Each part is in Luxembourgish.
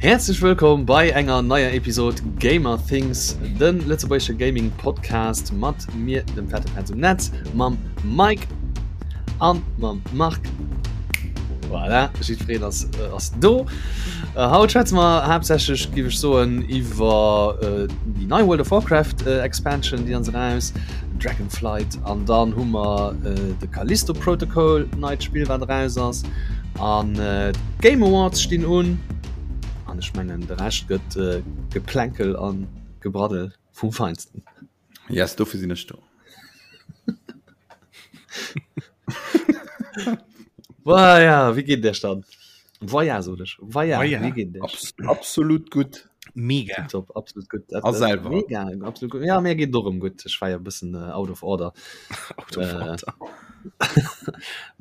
Häerzlech wëllkomm bei enger neier Episod Gamer Things, de lëtzebuergesche Gaming Podcast mat mir, dem fette Petz um Netz, mam Mike an mam Marc. Voilà, jiddwereen ass, äh, ass do. Äh, haut schwätze mer haaptsächlech, géif ech soen, iwwer äh, déi nei World of Warcraft äh, Expansion, déi ass eraus, Dragonflight, an dann hu mer äh, de Callisto Protocol, neit Spill, wat eraus ass. An d'Game Awards stinn un. An ech mengen de Rescht gëtt Geplänkel an Gebraddel vum Feinsten. Yes, dofir sinn ech do. Voilà, wéi geet et iech dann? Voya sot ech. Voya, wéi geet et iech? Absolut gutt. Mega. Top, absolut gutt. A selwer? Mega, absolut gutt. Ja, mir geet et och erëm gutt. Ech war jo e bëssen out of order. Out of order.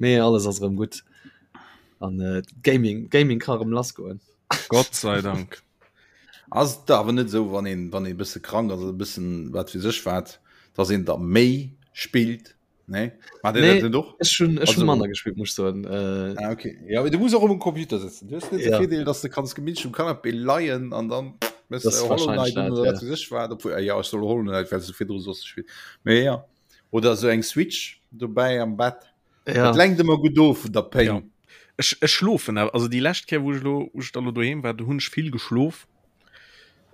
Mee alles ass erëm gutt. An äh, Gaming, Gaming ka erëm lassgoen. Gott sei Dank. Ass et awer net esou, wann een, wann ee bësse krank ass, e bëssen wat fir sech wat, dass een da méi spillt? Nee? Macht Dir dat net och? Ech hunn ech hunn manner gespillt, muss ech soen. Äh, ah, okay. Ja, du muss och um Computer sëtzen. Du hues net de Virdeel, dass du kanns gemütlech um Canapé leien an dann méchs de Hollow Knight un oder wat fir sech wat. Obwuel, ja, ech soll Hollow Knight, well s du virdru soss gespillt. Mee ja. Oder esou eng Switch dobäi am Bett. Ja. Dat lenkt ëmmer gutt of vun der Péng. Ja. Ech, ech schlofen awer, also déi lescht Kéier, wou ech lo, wou ech da lo doheem war, do hunn ech vill geschlof.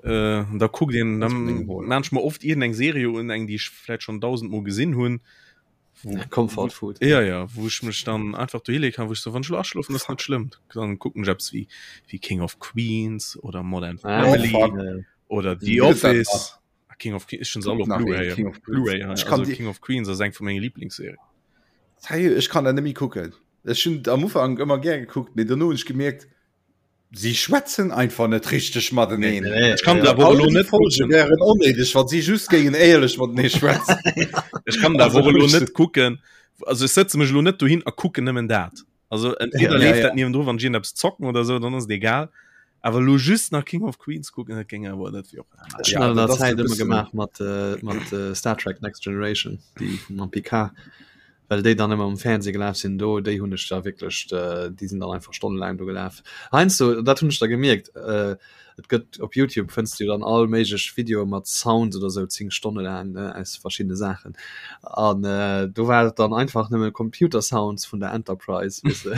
Äh, da kuckt een Das dann bringt wohl. maan ech mer oft iergendeng Serie un, eng déi ech vläit schonn dausendmol gesinn hunn. Wo, Comfort Food. Ja, ja, wou ech mech dann einfach dohileeë kann, wou ech so, wann ech lo aschlofen, ass net schlëmm. Dann kucken ech eppes wéi, wéi King of Queens oder Modern Ah, Family fuck. äh, oder The Gëtt dat Office. Ah, King of Queens, ech hunn se alle op Nach een Blu-ray. King of Queens. Blu-ray, Ich also kann die- King of Queens ass eng vu menge Lieblingsserien. Hey, ech kann dat net méi kucken. Ech hunn am Ufank ëmmer gär gekuckt, mee dono hunn ech gemierkt, si schwätzen einfach net richteg mateneen. Nee, nee, Ech kann ja. dat awer All elo déi net Folge kucken. wären onnéideg, wann si just géingen éierlech matenee schwätzen. Ech kann dat Also awer elo ech- net kucken. Also ech sëtze mech elo net dohin a kucken nëmmen dat. Also entweder Ja, leeft ja. dat niewendru, wann ech iergendeppes zocken oder sou, dann ass et egal. Awer elo just nach King of Queens kucken, dat géing awer net wéi och. Ech Ja, hunn an dat der ass Zäit e ëmmer bëssen- gemaach mat, äh, mat äh, Star Trek Next Generation, déi vum Picard, well déi dann ëmmer um Fernseh gelaf sinn. Do, déi hunn ech da wierklech, äh, déi sinn dann einfach stonnelaang do gelaf. Heiansdo, dat hunn ech da gemierkt, äh, Et gëtt op Youtube fënns du dann all méiglech Videoe mat Sounds oder sou 10 Stonne laang ne aus verschiddene Saachen an äh, do war et dann einfach nëmme Computer Sounds vun der Enterprise weess de.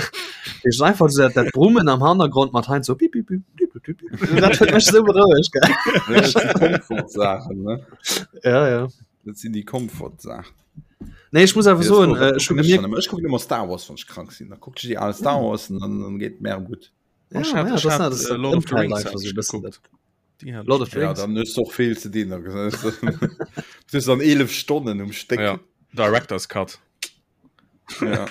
Heescht einfach so dat, dat Brummen am Hannergrond mat hein so bip bip bip bip bip bip. Dat huet mech sou berouegt gell. Dat sinn Komfortsaachen, ne? Ja ja. Dat sinn déi Komfortsaachen. Nee, ech muss awer soen, äh, ech hu gemierkt, Ech kucken ëmmer Star Wars, wann ech krank sinn. Da kuckt ech déi al Star Wars an dann, dann geet et mir gutt. Ja, Ech hat- ja, ech das, hat, das, äh, Lord of the Ëmfeld Rings einfach hat so ech bëssen geguckt. Die hat Lord of the Ja, Rings. dann hues du och vill ze dinn. Du hues dann 11 Stonnen um Stéck. Ja. Director's Cut. Ja.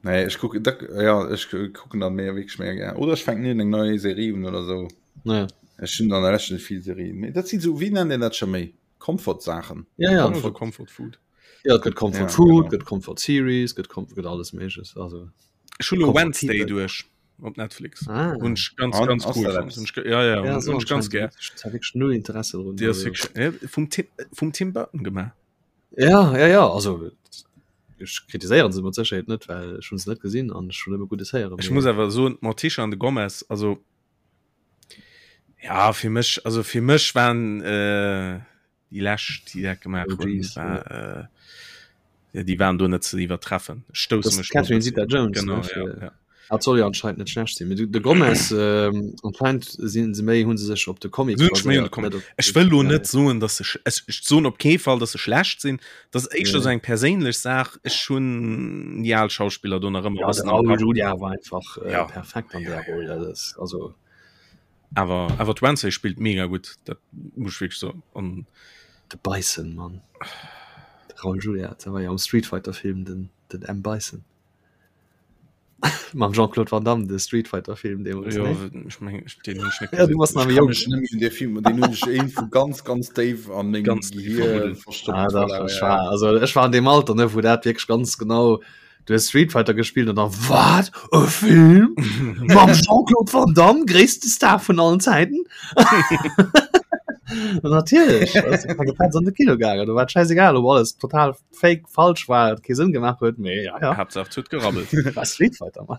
Nee, ech kucken, da, ja, ech kucken dann méi wierklech méi gär. Oder ech fänken eng nei Serie un oder sou. Ja. Ech hunn dann der net vill Serien. Mee dat sinn sou, wéi nennt een dat scho méi? Comfort-Saachen. Ja, ja. Comfort, Comfort Food. Ja, et gëtt Comfort Ja, Food, genau. gëtt Comfort Series, gëtt Comfort, gëtt alles Méigleches. Also. Ech hunn lo Comfort Wednesday People. duerch op Netflix. Ah. Hunn ech ganz, An, ganz ass cool dat fonnt. eppes? Hunn ech ge- Ja, ja, Ja, hunn so hunn ech ganz anscheinend. gär. Ich hab wirklich null Interesse drun. Déi ass Also. wierklech, äh, vum Tim, vum Tim Burton gemaach. Ja, ja, ja, also ech kritiséieren se mat Sécherheet net, well ech hunn se net gesinn an ech hunn nëmme Guddes héieren. Ech muss awer soen, d'Morticia an de Gomez, also ja, fir mech, also fir mech waren äh, déi lescht, déi dat gemaach hunn, OGs, war, äh, ja, déi waren do net ze iwwertreffen. Ech stousse Das mech do e Catherine bëssi. Zeta-Jones, Genau, ne, ja, fir- ja. Dat soll jo anscheinend net schlecht sinn. Mee de, de Gomez, ähm, anscheinend sinn se méi, hunn se sech op de Comic Sinn ech méi un de baséiert, Comic. net op Ech wëll lo ja, net soen, dass se sch ech, ech soen op kee Fall, dass se schlecht sinn. Dat ass éischter Ja. sou eng perséinlech Saach. Ech hunn déi al Schauspiller do nach ëmmer e Ja, de bëssen am Raoul Kapp. Julia war einfach äh, Ja. perfekt an der Roll. Dat ass, also Awer awer d'Wednesday spillt mega gutt, dat muss ech wierklech soen. An de Bison, Mann. De Raoul Julia, dat war jo am Street Fighter Film den, den M. Bison. Mam Jean-Claude Van Damme, de Street Fighter Film deemools, jo, ne? ech meng, ech- deen hunn ech net Ja, du gesinn. warst nach Ech méi kann jonk. mech net méi un dee Film, deen hunn ech iergendwou ganz, ganz déif an mengem Ganz déif Gehir verbuddelt. verstoppt. Ah, dach, Voilà, ech ja. war, also ech war an deem Alter, ne, wou dat wierklech ganz genau, du hues Street Fighter gespillt an dann, wat? E Film? Mam Jean-Claude Van Damme, gréisste Star vun allen Zäiten? Natierlech, ass de Petz an de Kino gaangen, do war et schäisegal, ob alles total fake, falsch war, et kee Sënn gemaach huet, mee ja, ja. Haaptsaach et huet gerabbelt. War Street Fighter, Mann.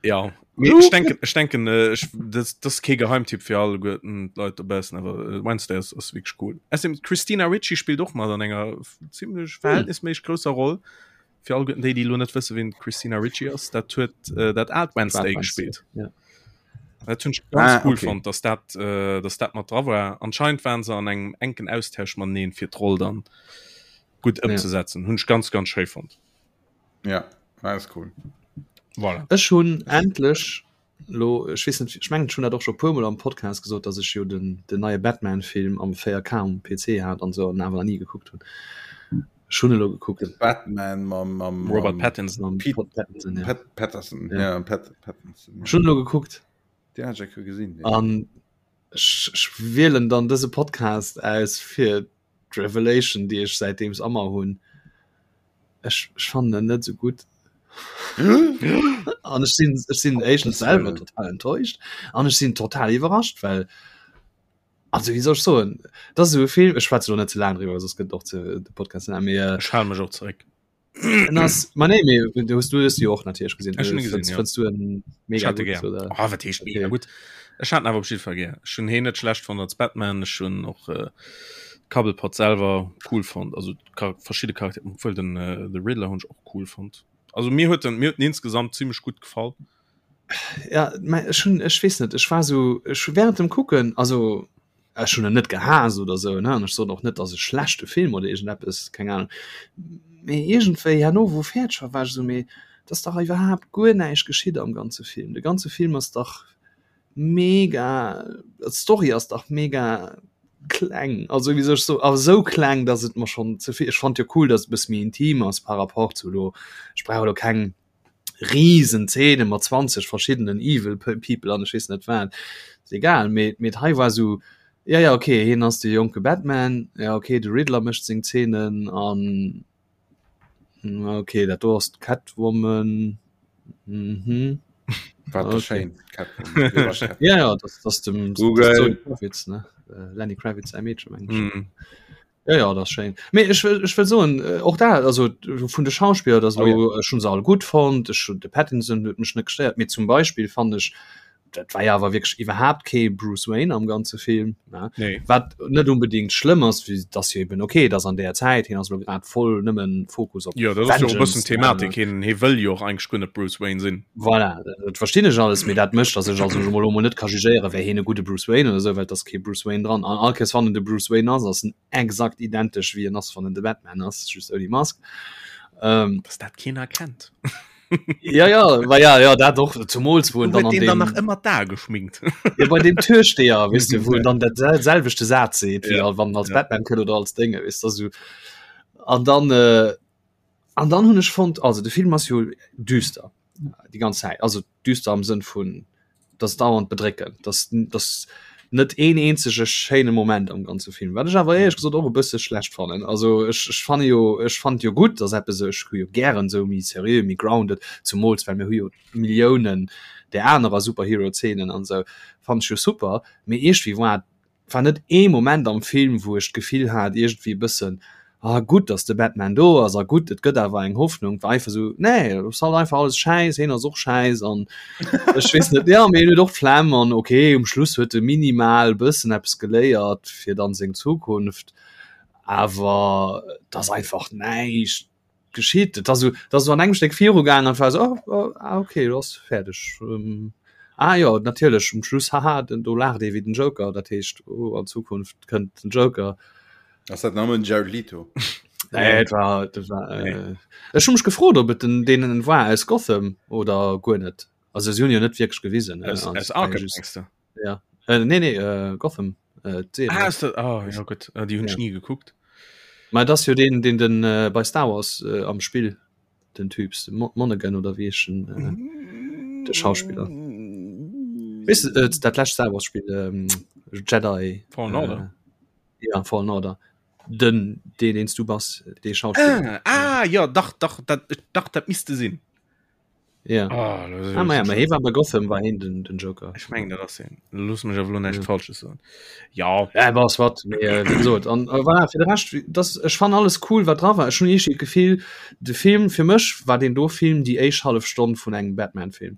Ja ech denken ech denken äh, ech, das, das kee Geheimtipp fir all Leit dobaussen awer äh, Wednesday ass, ass wierklech cool. Außerdem Christina Ricci spillt och mat an enger ziemlech hm. verhältnisméisseg grousser Roll. Fir all déi déi lo net wësse wien Christina Ricci ass, dat huet äh, dat aalt Wednesday gespillt. Ja. Dat hunn ech ganz ah, cool okay. fonnt, dass dat äh, dass dat mat dra war. Anscheinend waren se an engem enken Austausch mateneen fir d'Roll dann gutt ëmzesetzen. Ja. Hunn ech ganz ganz schéi fonnt. Ja, war ist cool. Voilà. Ech hunn endlech lo ech weess net ech mengen ech hunn dat och scho puermol am Podcast gesot, datt ech jo den den neie Batman-Film am 4K um PC hat an sou an awer nach ni gekuckt hunn. Ech hunn elo gekuckt. De Batman mam, mam, Robert mam Pattinson. Mam Pete Pat Pattinson, ja. Pat Patterson. Ja. Ja, Pat Pattinson. Ech hunn elo gekuckt. Den hat ech gesinn. Ja. An ech, ech wielen dann dëse Podcast aus fir d'Revelation, déi ech säitdeems ëmmer hunn. Ech, ech fannen en net esou gutt. An ech sinn, ech sinn éischtens selwer total enttäuscht an ech sinn total iwwerrascht, well also wéi soll ech soen, dat ass esou e Film, ech schwätze lo net ze laang driwwer, soss gëtt och ze de Podcast ze laang, mee Ech hale mech och zeréck. en ass, ma nee, mee du hues du hues jo och natierlech gesinn. Ech hunn e gesinn, Fënns ja. fënns du en Ech mega hat e gutt gär. oder? Oh, wat heescht mega Okay. gutt? Ech hat en awer op jidde Fall gär. Ech hunn heen net schlecht fonnt als Batman, ech hunn och äh, Cobblepot selwer cool fonnt, also Char verschidde Charaktere, obwuel den äh, The Riddler hunn ech och cool fonnt. Also mir huet en mir huet en insgesamt zimmlech gutt gefall. Ja, mä ech hunn, ech weess net, ech war sou, ech hu während dem Kucken, also ech hunn en net gehaasst oder sou, ne, an ech soen och net, dass e schlechte Film oder iergendeppes, keng Ahnung, mee iergendwéi herno, wou fäerdeg war, war ech sou, mee et ass dach iwwerhaapt guer näischt geschitt am ganze Film. De ganze Film ass dach mega, d'Story ass dach mega kleng, also wéi soll ech soen, awer esou kleng, dass et mer schonn ze vill, ech fand jo cool, dass et e bësse méi intim ass par rapport zu elo, ech brauch elo keng riesen Szene mat 20 verschiddenen evil people an ech weess net wat, ass egal, mee mee hei war esou, ja ja okay, hien ass de jonke Batman, ja okay, de Riddler mécht seng Szenen an okay, dat do ass d'Catwoman, mhm. Wat Okay. schéin Catwoman. Ja ja, das, das dem Google. Zoe Kravitz, ne? Äh, Lenny Kravitz säi Meedche meng ech. Mhm. Ja, ja, das schéin. Mee ech wëll, ech wëll soen, äh, och da, also vun de Schauspiller, das Oh, lo, ech hunn se all gutt fonnt, ech hunn de Pattinson huet mech net gestéiert, mee zum Beispill fand ech, dat war ja awer wierklech iwwerhaapt kee Bruce Wayne am ganze Film, ne? Nee. Wat net unbedingt schlëmm ass, wéi dass jo eben okay, dass an där Zäit, hien ass lo grad voll nëmmen Fokus op Jo, dat ass jo och e bëssen Vengeance, Thematik. ne? Hien, hie wëll jo och eigentlech guer net Bruce Wayne sinn. Voilà, dat verstinn ech alles, mee dat mécht, dass ech also mol elo mol net ka jugéieren, wär hien e gudde Bruce Wayne oder esou, well et ass kee Bruce Wayne dran. An all Kéiers wann en de Bruce Wayne ass, ass en exakt identesch wéi en ass, wann en de Batman ass, just ouni Mask. Ähm, Dass dat keen erkennt. ja, ja, ma ja, ja, dat och, zumools wou en Huet dann an deen dann deem, nach ëmmer d'Ae geschminkt? ja, bei deem Türsteher, weess de, wou en dann dat sel selwechte Saz seet, wéi Ja, wann en als ja. Batman kënnt oder als Dénge, weess de, esou. An dann, äh, an dann hunn ech fonnt, also de Film ass jo düster, déi ganz Zäit, also düster am Sënn vun dass dauernd bedréckend, dass dass net een eenzege schéine Moment am ganze Film, wat ech awer éierlech gesot och e bësse schlecht fannen. Also ech ech fanne jo ech fand jo gutt, dass eppes ech hu jo gären esou méi seriö, méi grounded, zumools well mir hu jo Milliounen där anerer Superhero-Zeenen an esou, fannen ech jo super, mee iergendwéi war war net ee Moment am Film, wou ech d'Gefill hat iergendwéi e bëssen, ah gutt, datt de Batman do ass a gutt, et gëtt awer eng Hoffnung. War einfach esou, nee, et ass halt einfach alles schäiss, hien ass och schäiss an ech weess net, jo, mee hien huet och d'Flemm an okay, um Schluss huet e minimal e bëssen eppes geléiert fir dann seng Zukunft, awer et ass einfach näischt. geschitt. Et ass esou, et ass esou an engem Stéck virugaangen an et war esou, oh, oh, ah, okay, lo ass fäerdeg. Ähm, ah jo, natierlech, um Schluss, haha, den, do laacht ee wéi den Joker, dat heescht, oh, an Zukunft kënnt den Joker. Ass dat nëmmen Jared Leto? Nee, et war, dat war, äh, ech hu mech gefrot, ob et den, deen war aus Gotham oder guer net. Also si hunn jo net wierklech gewisen. Aus, äh, aus Arkham, mengst du? Ja. Äh, nee, nee, äh, Gotham. Äh, d'Serie. Ah, ist das, oh, ja, gut. Äh, die hun Ja. ich nie geguckt. Ma das jo den, den den äh, bei Star Wars äh, am Spill den Typs den Mo Monaghan oder wie ich den, äh, de Schauspieler. Weißt du, äh, dat lescht Star Wars Spiel ähm, Jedi Fallen Order. Äh, ja Fallen Order. Den den den du bass, dee Schauspieler. Ah, ah, ja, dach, dach, dat, dach, dat misste sinn. Ja. Ah, das Ah, ma ja, ma hie war bei Gotham war hien den, den Joker. Ech mengen dat ass hien. Looss mech awer lo näischt Ja. Falsches soen. Ja, Ja, was wat mee, äh, wéi gesot an äh, voilà, fir de Rescht wie- das ech fan alles cool wat dra war. Ech hunn eescht Gefill de Film fir mech war den do Film déi éischt hallef Stonn vun engem Batman Film.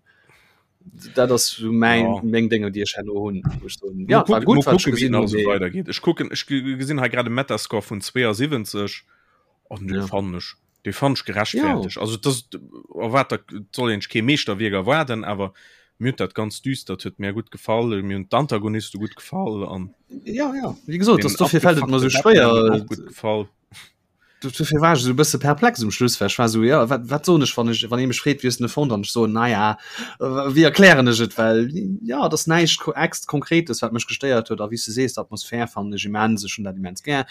Dat ass sou mäin Ja. meng Dénger, déi ech herno hunn, wou ech soen, Mal ja, war gucken, gutt, mal wat ech gucken, wéi gesinn nach hunn, esou mee weidergeet. Ech kucken, ech ge- gesinn hei grad e Metascore vun 72 an dee Ja. fannen ech, dee fannen ech Ja. gerechtfertegt. Also das erwaart der et soll een sech kee Meeschterwierk erwaarden, awer mir huet dat ganz düstert huet mir gutt gefall, mir hunn d'Antagoniste gutt gefall an Ja, ja, wéi gesot, den dass dofir fält et mer sou abgefuckte Batman huet schwéier, mer och gutt gefall. Dofir war ech esou e bësse perplex um Schluss, well ech war esou, jo, wat, wat soen ech, wann ech, wann ee mech freet, wéi hues de en fonnt, an ech soen, naja, wéi erklären ech et, well jo, et ass näischt ex Konkretes, wat mech gestéiert huet, a wéi s de sees, d'Atmosphär fannen ech immens, ech hunn dat immens gär.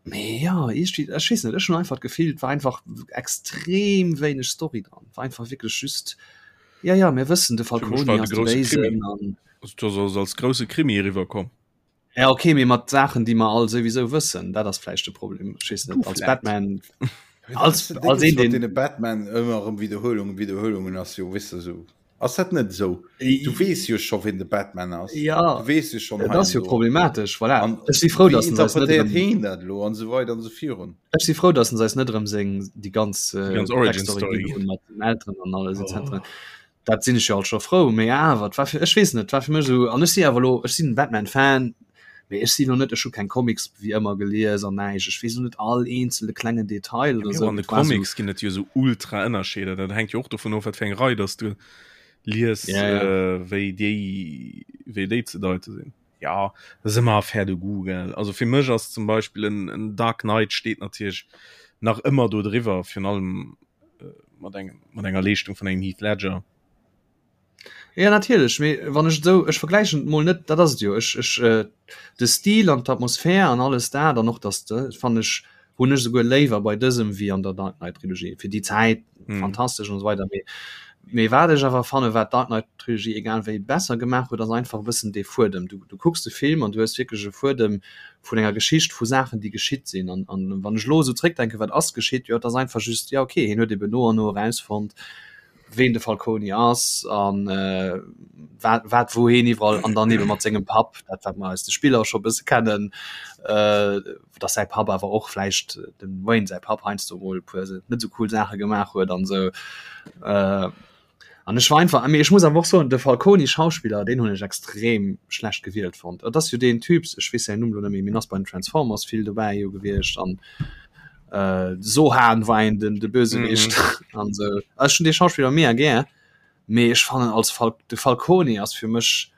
Mee jo, iergendwéi, ech weess net, ech hunn einfach d'Gefill, et war einfach extrem wéineg Story dran, et war einfach wierklech just, jo, jo, mir wëssen, de Fir mech Falcone war et ass e de grousse Krimi, Béisen an. also et ass als grousse Krimi eriwwerkomm. Ja okay, mee mat Saachen déi mer all souwisou wëssen, dat ass vläicht de Problem. Ech weess net, als Batman als, als een den Batman ëmmer erëm Wiederhuelungen Wiederhuelungen ass jo wis du so ass dat net esou du wees jo scho wien de Batman ass ja du wees jo schon dat ass jo problematesch voilà. An ech si frou dass en eis net interpretéiert heen dat lo an sou weider an sou virun ech si frou dass en eis net erëm seng déi ganz Déi ganz Origin Backstory Story ginn hunn mat den Elteren an alles oh. etc. Dat sinn ech jo alt scho frou, mee awer, et war fir, ech weess net, et war fir mech esou, an ech si awer elo, ech sinn en Batman-Fan, mee ech si elo net, ech hu keng Comics wéi ëmmer gelies an näischt, ech weess elo net all eenzele klengen Detail Ja, oder mee esou, och an de et war esou. Comics ginn et jo esou ultra Ënnerscheeder, dat hänkt jo och dovun of, wat fir eng Rei dass du lies, Ja, ja. wéi déi, wéi déi ze deite sinn. Ja, dat ass ëmmer Affaire de goût, gell. Also fir mech ass zum Beispill en, en Dark Knight steet natierlech nach ëmmer do driwwer, virun allem mat engem mat enger Leeschtung vun engem Heath Ledger. Ja natierlech, mee wann ech esou ech vergläichen et mol net, dat ass et jo ech ech äh, de Stil an d'Atmosphär an alles dat an och dass de fannen ech hunn ech esouguer léiwer bei dësem wéi an der Dark Knight Trilogie fir déi Zäit mm. fantastesch und so weiter mee mee wat ech awer fanne wat Dark Knight Trilogie egal wéi besser gemaach huet ass einfach e bëssen dee Fuedem du du kucks de Film an du hues wierklech e Fuedem vun enger Geschicht vu Saachen, déi geschitt sinn. An, an wann ech elo esou zréckdenken, wat ass geschitt, jo, et ass einfach just, jo, okay, hien huet eben no an no erausfonnt, ween de Falcone ass an äh, wat, wat wou hien iwwerall an dann eben mat sengem Papp, dat wat mer aus de Spiller scho bësse kennen, äh, dass säi Papp awer och vläicht dem Wayne säi Papp heiansdo mol e puer net esou cool Saache gemaach huet an esou. Äh, An ech war einfach, mee ech muss awer och soen, de Falcone Schauspiller, deen hunn ech extrem schlecht gewielt fonnt. Et ass jo deen Typ, ech weess säin Numm lo net méi, mee en ass bei den Transformers vill dobäi jo gewiescht an äh, Sohan war een den de Bösewicht mhm. an sou. Ech hunn dee Schauspiller mega gär, mee ech fannen als Fal de Falcone ass fir mech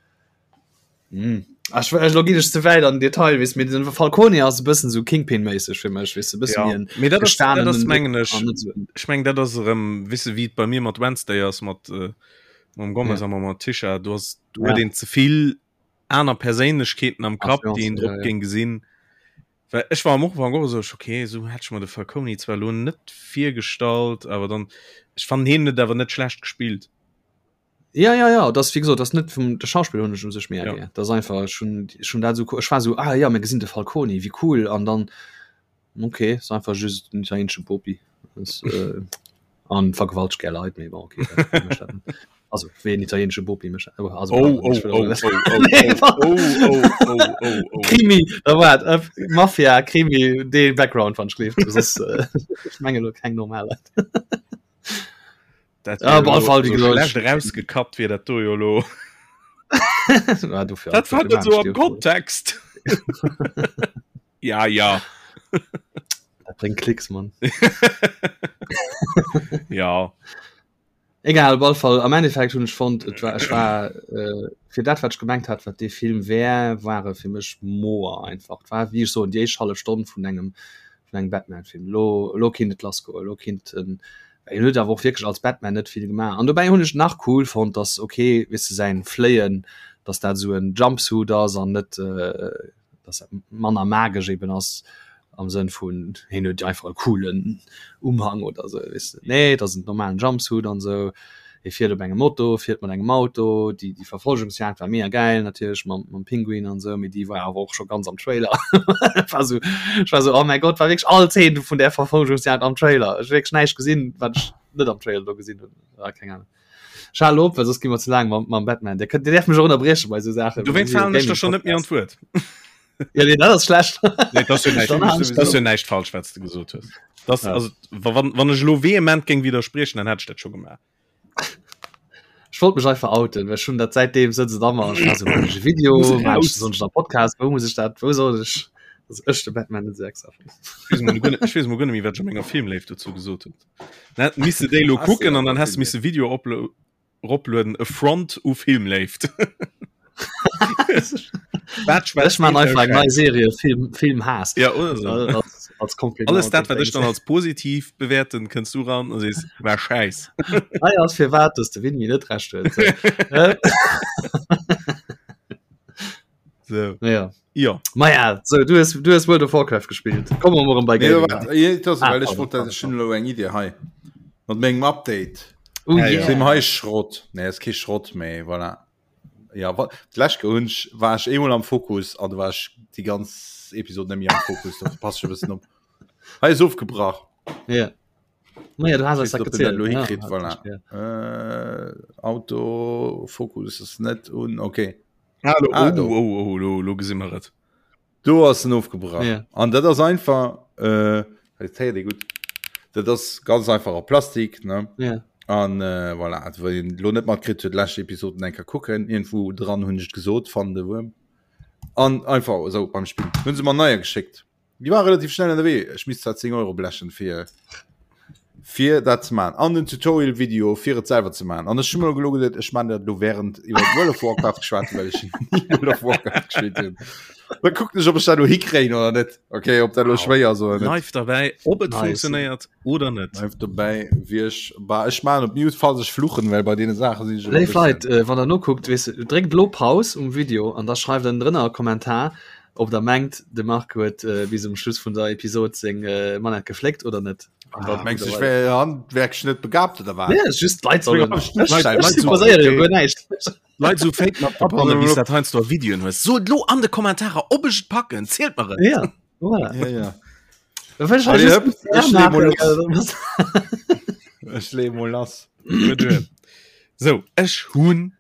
Hm. Ech, ech, lo ginn ech ze wäit an den Detail, weess, mee den Falcone ass e bëssen sou Kingpin-méisseg fir mech, weess de, bëssen Ja, wéi en mee dat ass, dat ass gestanenen mengen ech, an net sou en. ech meng dat ass erëm, weess de, wéi et bei mir mat Wednesday ass, mat äh, mam Gomez Ja. a mam Morticia, do ass, do huet Ja. een ze vill aner Perséinlechkeeten am Kapp, déi een Influencen, drop ja, ja. géing gesinn. Well ech war am Ufank och esou, ech, okay, esou hätt ech mer de Falcone zwar elo net virgestallt, awer dann, ech fannen hien huet awer net schlecht gespillt. Ja ja ja das wie gesagt das net vum de Schauspiel hunn ech um sech mé Ja. gär das einfach schon schon dat so ech war so ah ja mir gesinn de Falcone wie cool an dann okay ist einfach just den italiensche Bopi das, äh, an vergewaltigt gär Leit méi bon, okay, dat mécht dat net. also wéi en italiensche Bopi mécht dat. also, Oh, pardon, oh, ech will oh, och oh, oh, oh, oh, oh, oh, oh. Krimi da waart äh, Mafia Krimi dee Background wann ech gleeft soss äh, ech menge lo keng normal Leit. Dat Ja, op alle Fall, wie so gesagt, schlecht rausgekappt wier dat do jo lo. Ja, dofir, Dat war net so am dofir Kontext. ja, ja. Dat bréngt Klicks, Mann. Ja. Egal, op alle Fall, am Endeffekt hunn ech fonnt, et war, ech war äh, fir dat, wat ech gemengt hat, wat dee Film wär, war e fir mech moer einfach. Et war, wéi ech soen, déi éischt hallef Stonn vun engem, vun engem Batman-Film. Lo, lo kinnt et lassgoen, lo kinnt en, Hien huet awer och wierklech als Batman net vill gemaach. An dobäi hunn ech nach cool fonnt, dass okay, weess de, säin Fléien, dass dat esou en Jumpsuit ass an net, dass dat manner magesch eben ass am Sënn vun hien huet einfach e coolen Umhang oder esou, weess de. Nee, et ass en normalen Jumpsuit an esou. Hie fiert op engem Moto, fiert mat engem Auto. Déi, déi Verfolgungsjagd war mega gäil natierlech mam, mam Pinguin an esou, mee déi war awer och scho ganz am Trailer. War esou, ech war esou, oh mäi Gott, war wierklech all Zeen vun där Verfolgungsjagd am Trailer. Ech hu wierklech näischt gesinn, wat ech net am Trailer do gesinn hunn. Ah, keng Ahnung. Ech halen op, well soss gi mer ze laang mam, mam Batman. Dir kënnt, Dir däerft mech och ënnerbrieche bei esou Saachen. Dowéinst falen ech der schonn net méi an d'Wuert. Ja, nee, dat ass schlecht. Nee, dat ass jo näischt, Dann halen ech dat ass jo op. näischt falsch, wat s de gesot hues. Das, Ja. also, wa- wann, wann ech elo vehement géing widderspriechen, dann hätt ech dat scho gemaach. Ech wollt mech einfach outen, well ech hunn dat säitdeem sëtzt et a mer. Ech war sou, maachen ech e Video, Muss maachen ech raus. soll ech am Podcast, wou muss ech dat, wou soll ech, dass ech de Batman net esou extra fannen. Ech weess mol guer net, ech weess mol guer net méi, wat ech a menger Filmléift dozou gesot hunn. Dann hätt misse déi lo Hast du kucken an awer dann häss de misse Filmléift. Video oplo roplueden, Affront u Filmléift. Wat Ech schwätzt maan deen einfach eng nei Schäiss? Serie Film Filmhaass Ja, oder so. als, als Kompliment Alles dat, und wat ech Dings. dann als positiv bewäerten, kënns du ran a sees, war Schäiss. Hei ass firwat, dass de Winnie net recht huet. So. Äh, So. ja. Ja. Ma ja, so, du hues, du hues World of Warcraft gespielt. Komme mer erëm bei Nee, Gaming. wart, eh, das, Ah, well ech pardon, wollt dat pardon, ech hunn elo eng Idee hei. Mat mengem Update. Oh Ja, ja. yeah. Sim hei Schrott. Nee, ass kee Schrott méi, voilà. Ja, wa d'lescht Kéier hunn ech war ech eemol am Fokus an du war ech déi ganz Episod net méi am Fokus, dofir pass ech e bëssen op. Hei ass ofgebrach. Ja. Ma ja, du hast Ich eis dat weiß nicht, ob den dat gezielt. lo Ja, hikritt, hat voilà. ech, ja. Äh, Autofokus ass net un, okay. Ah, lo, Ah, oh, do. oh, oh, lo, lo gesi mer et. Do ass en ofgebrach. Ja. An dat ass einfach äh, dat héiert ee gutt. Dat ass ganz einfach a Plastik, ne? Ja. An äh, voilà, also, wann een lo net matkritt huet, lescht Episoden eng Kéier kucken. Iergendwou dran hunn ech et gesot, fannen de Wuerm. An einfach esou beim Spillen. Hunn se mer neier geschéckt. Déi war relativ schnell ënnerwee. Ech misst zwar 10 Euro blechen fir fir dat ze man an den Tutorial Video fir et selwer ze man. An ech hun mer gelo geduet, ech man dat lo während iwwer World of Warcraft geschwat hunn, well ech ni World of Warcraft gespillt hunn. Da kucken ech, ob ech dat lo hikréien oder net. Okay, ob dat lo schwéier ass oder net. Live dabei, ob et Nice. funktionéiert oder net. Live dobäi wie ech bah, ech man op Mute falls ech fluchen, well bei deene Saache sinn ech ëmmer e Léif Leit, bëssen. äh, wann der nokuckt, weess de, dréckt lo Paus um Video an da schreift en drënner e Kommentar, Ob der mengt de Marc huet äh, bis um Schluss vun der Episod seng äh, Manette gefléckt oder net. Ah, mengst du, ich wär handwerklich net begabt oder wat? Nee, just d'Leit sollen. Leit jo guer näischt. Leit so fake mat abbannen, wéi dat heiansdo a Videoen hues. Sot lo an de Kommentarer, ob ech et packen, zielt mer et. Ja, voilà. Ja, ja. Da wëll ech Allez, just hëpp, ech lee mol machen. Ech lee mol lass. So, ech hunn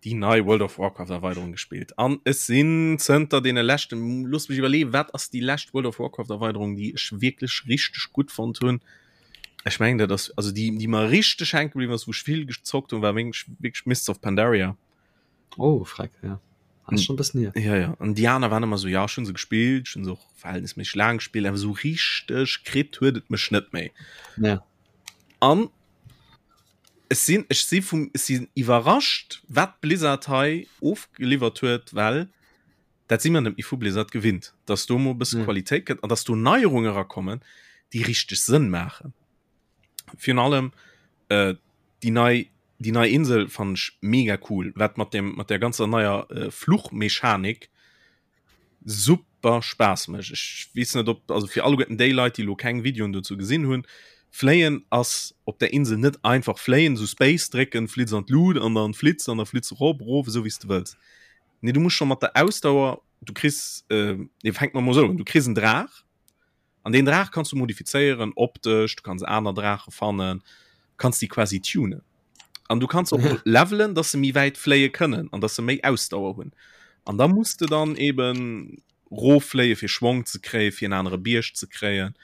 déi nei World of Warcraft Erweiderung gespillt an ech sinn zënter deene leschten, loosst mech iwwerleeën, wat ass déi lescht World of Warcraft Erweiderung, déi ech wierklech richteg gutt fonnt hunn? Ech mengen dat ass, also déi déi mer richteg hänke bliwwen ass, wou ech vill gezockt hunn, war wierklech wierklech Mists of Pandaria. Oh, freck, ja. Ass schon e bëssen hier. Ja, ja. An déi aner waren ëmmer esou, ja, ech hunn se gespillt, ech hunn se och verhältnisméisseg laang gespillt, awer esou richteg kritt huet et mech net méi. Ja. An ech sinn ech si vum ech sinn iwwerrascht wat Blizzard hei ofgeliwwert huet, well dat si mer net méi vu Blizzard gewinnt, dass do mol e bësse Ja. Qualitéit kënnt an dass do Neierunge erakommen, déi richteg Sënn maachen. Virun allem äh, déi nei déi nei Insel fannen ech mega cool, wat mat dem mat der ganzer neier äh, Fluchmechanik super Spaass mécht. Ech weess net op also fir alleguerten déi Leit déi lo keng Videoen dozou gesinn hunn, fléien ass op der Insel net einfach fléien, sou Space drécken, flitz an d'Lut an dann flitz an da flitz erop, erof, esou wéi s de wëlls. Nee du muss scho mat der Ausdauer, du kriss äh, nee fänkt mer mol esou un, du kriss en Draach an deen Draach kanns du modifizéieren optesch, du kanns aner Draache fannen, kanns déi quasi tunen. An du kanns och levelen, dass se méi wäit fléie kënnen an dass se méi Ausdauer hunn. An da muss de dann eben roffléie fir Schwong ze kréien, fir en anere Bierg ze kréien.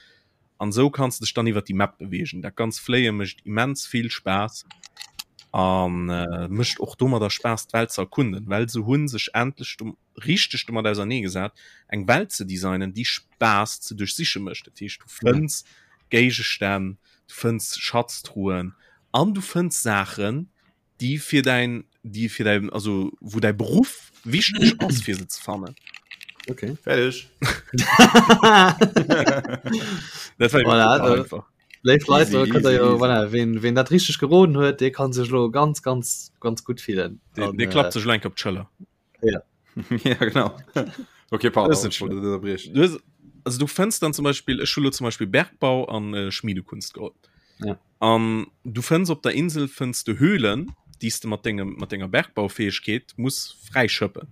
An esou kanns de dech dann iwwer déi Map beweegen. Dat ganz Fléie mécht immens vill Spaass an äh, mécht och domadder Spaass d'Welt ze erkunden, well se hunn sech endlech do richteg domat ausernee gesat, eng Welt ze designen, déi Spaass ze duerchsiche mécht. Dat heescht, du fënns Géigestänn, du fënns Schatztruhen an du fënns Saachen, déi fir däin, déi fir däin, also wou däi Beruff wichteg ass, fir se ze fannen. Okay. Fertig. Dat war Voilà, super da- einfach. Léif Leit, Easy, da könnt der easy, jo, easy. voilà, wen, wen dat richteg geroden huet, dee kann sech lo ganz, ganz, ganz gutt fillen. Dee, An, dee äh, klappt sech lo enk op d'Schëller. Ja. ja genau. Okay, pardon, Das ist ich wollte dich unterbrechen. Du hues, also du fënns dann zum Beispiel ech hu lo zum Beispiel Bergbau an äh, Schmiedekunst geholl. Ja. An du fënns op der Insel fënns du Höhlen, déi s de mat dengem mat denger Bergbaufähegkeet muss fräischëppen,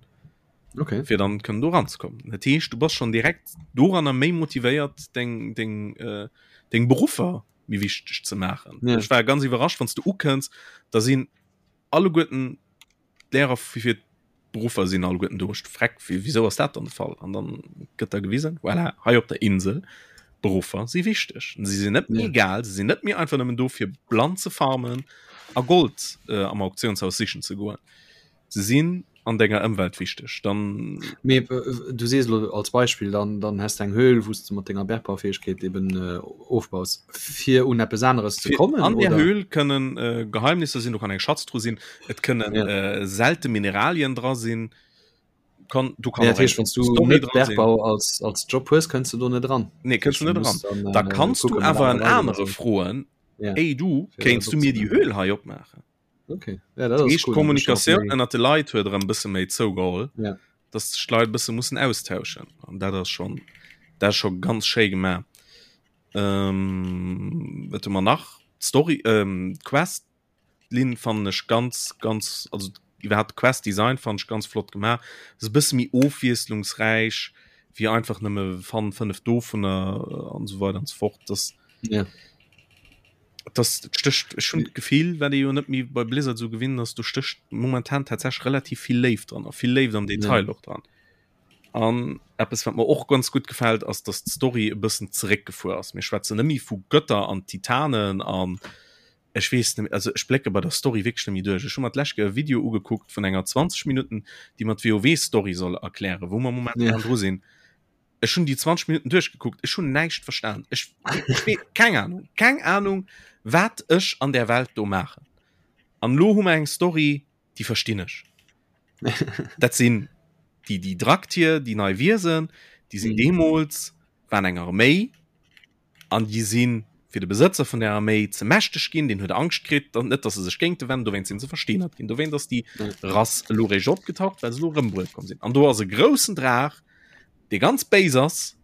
Okay. fir dann kënnen do ranzekommen. Dat heescht, du bass schon direkt doranner méi motivéiert deng deng äh, deng Beruffer méi wichteg ze maachen. Ja. Ech war ganz iwwerrascht, wann s du ukënns, da sinn alleguerten d'Lehrer fir d'Beruffer sinn alleguerten do. Ech freck, wéi wéisou ass dat dann de Fall? An dann gëtt da gewisen, voilà, hei op der Insel, Beruffer si wichteg. Si sinn net méi Ja. egal, si sinn net méi einfach nëmmen do fir blann ze farmen. a Gold äh, am Auktionshaus sichen ze goen. Se sinn an denger Ëmwelt wichteg. Dann Mee äh, du sees lo als Beispill dann dann hast eng Höhl wous du mat denger Bergbaufähigkeet eben äh, ofbaus fir un eppes aneres ze kommen an der Höhl kënnen äh, Geheimnisser sinn, do kann eng Schatztruh sinn, et kënnen ja. äh, selte Mineralien dra sinn. Kann, du kann ja, heißt, wann du net Bergbau als, als Job hues, kënns du do net dran. Nee, kënns du net dran. Dann, äh, da kannst du awer en anere froen, ja. Ey du, kéinst du mir die Höhl hei opmaachen? Okay. Ja, dat ass cool. Kommunikatioun ënner de Leit huet erëm bësse méi zougeholl, ja. dass sech d'Leit bësse mussen austauschen. An dat ass schon dat ass scho ganz schéi gemaach. Ähm, wat hu mer nach? D'Story, ähm, d'Quest Linn fannen ech ganz ganz also iwwerhaapt Quest Design fannen ech ganz flott gemaach. Ass e bësse méi ofwiesslungsräich wéi einfach nëmme fann 5 dovunner an esou weider an esou fort. Das ja. Das stécht ech hunn d'Gefill, wat ee jo net méi bei Blizzard esou gewinnt ass, do stécht momentan tatsächlech relativ vill Léift dran a vill Léift am Detail ja. och dran. An eppes wat mer och ganz gutt gefält, ass datt d'Story e bëssen zeréckgefuer ass. Mir schwätzen net méi vu Götter an Titanen an ech weess net, also ech blécke bei der Story wierklech net méi duerch. Ech hu mer d'lescht Kéier e Video ugekuckt vun enger 20 Minutten, déi mer d'WoW-Story soll erklären, wou mer momentan ja. dru sinn. Ech hunn déi 20 Minuten duerchgekuckt, ech hunn näischt verstan. Ech, ech wee, keng Ahnung, keng Ahnung, wat ech an der Welt do maachen. An lo hu mer eng Story, déi verstinn ech. Dat sinn déi, déi Draktier, déi nei Wiesen, déi sinn mhm. deemools, waren eng Arméi, An déi si fir de Besëtzer vun der Arméi ze mächteg ginn, deen huet Angscht kritt, dann net, datt se sech géinte wennen, dowéinst sinn se versteenert ginn. Dowéint ass déi Rass elo réischt opgetaucht, well se elo erëm bruet komm sinn. An do ass e groussen Draach, dee ganz béis ass,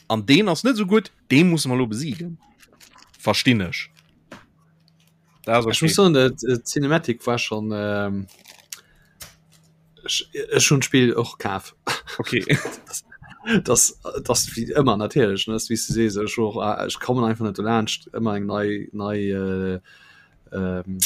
an deen ass net esou gutt, dee musse mer elo besiegen. Verstinn ech. Dat ass okay. Ech muss soen, d'Cinematic war schonn. Ähm Ech hunn d'Spill och kaf. Okay. das, das wie ëmmer natierlech ne wéi s du sees ech och äh, ech kommen einfach net dolaanscht ëmmer eng nei nei äh, ähm,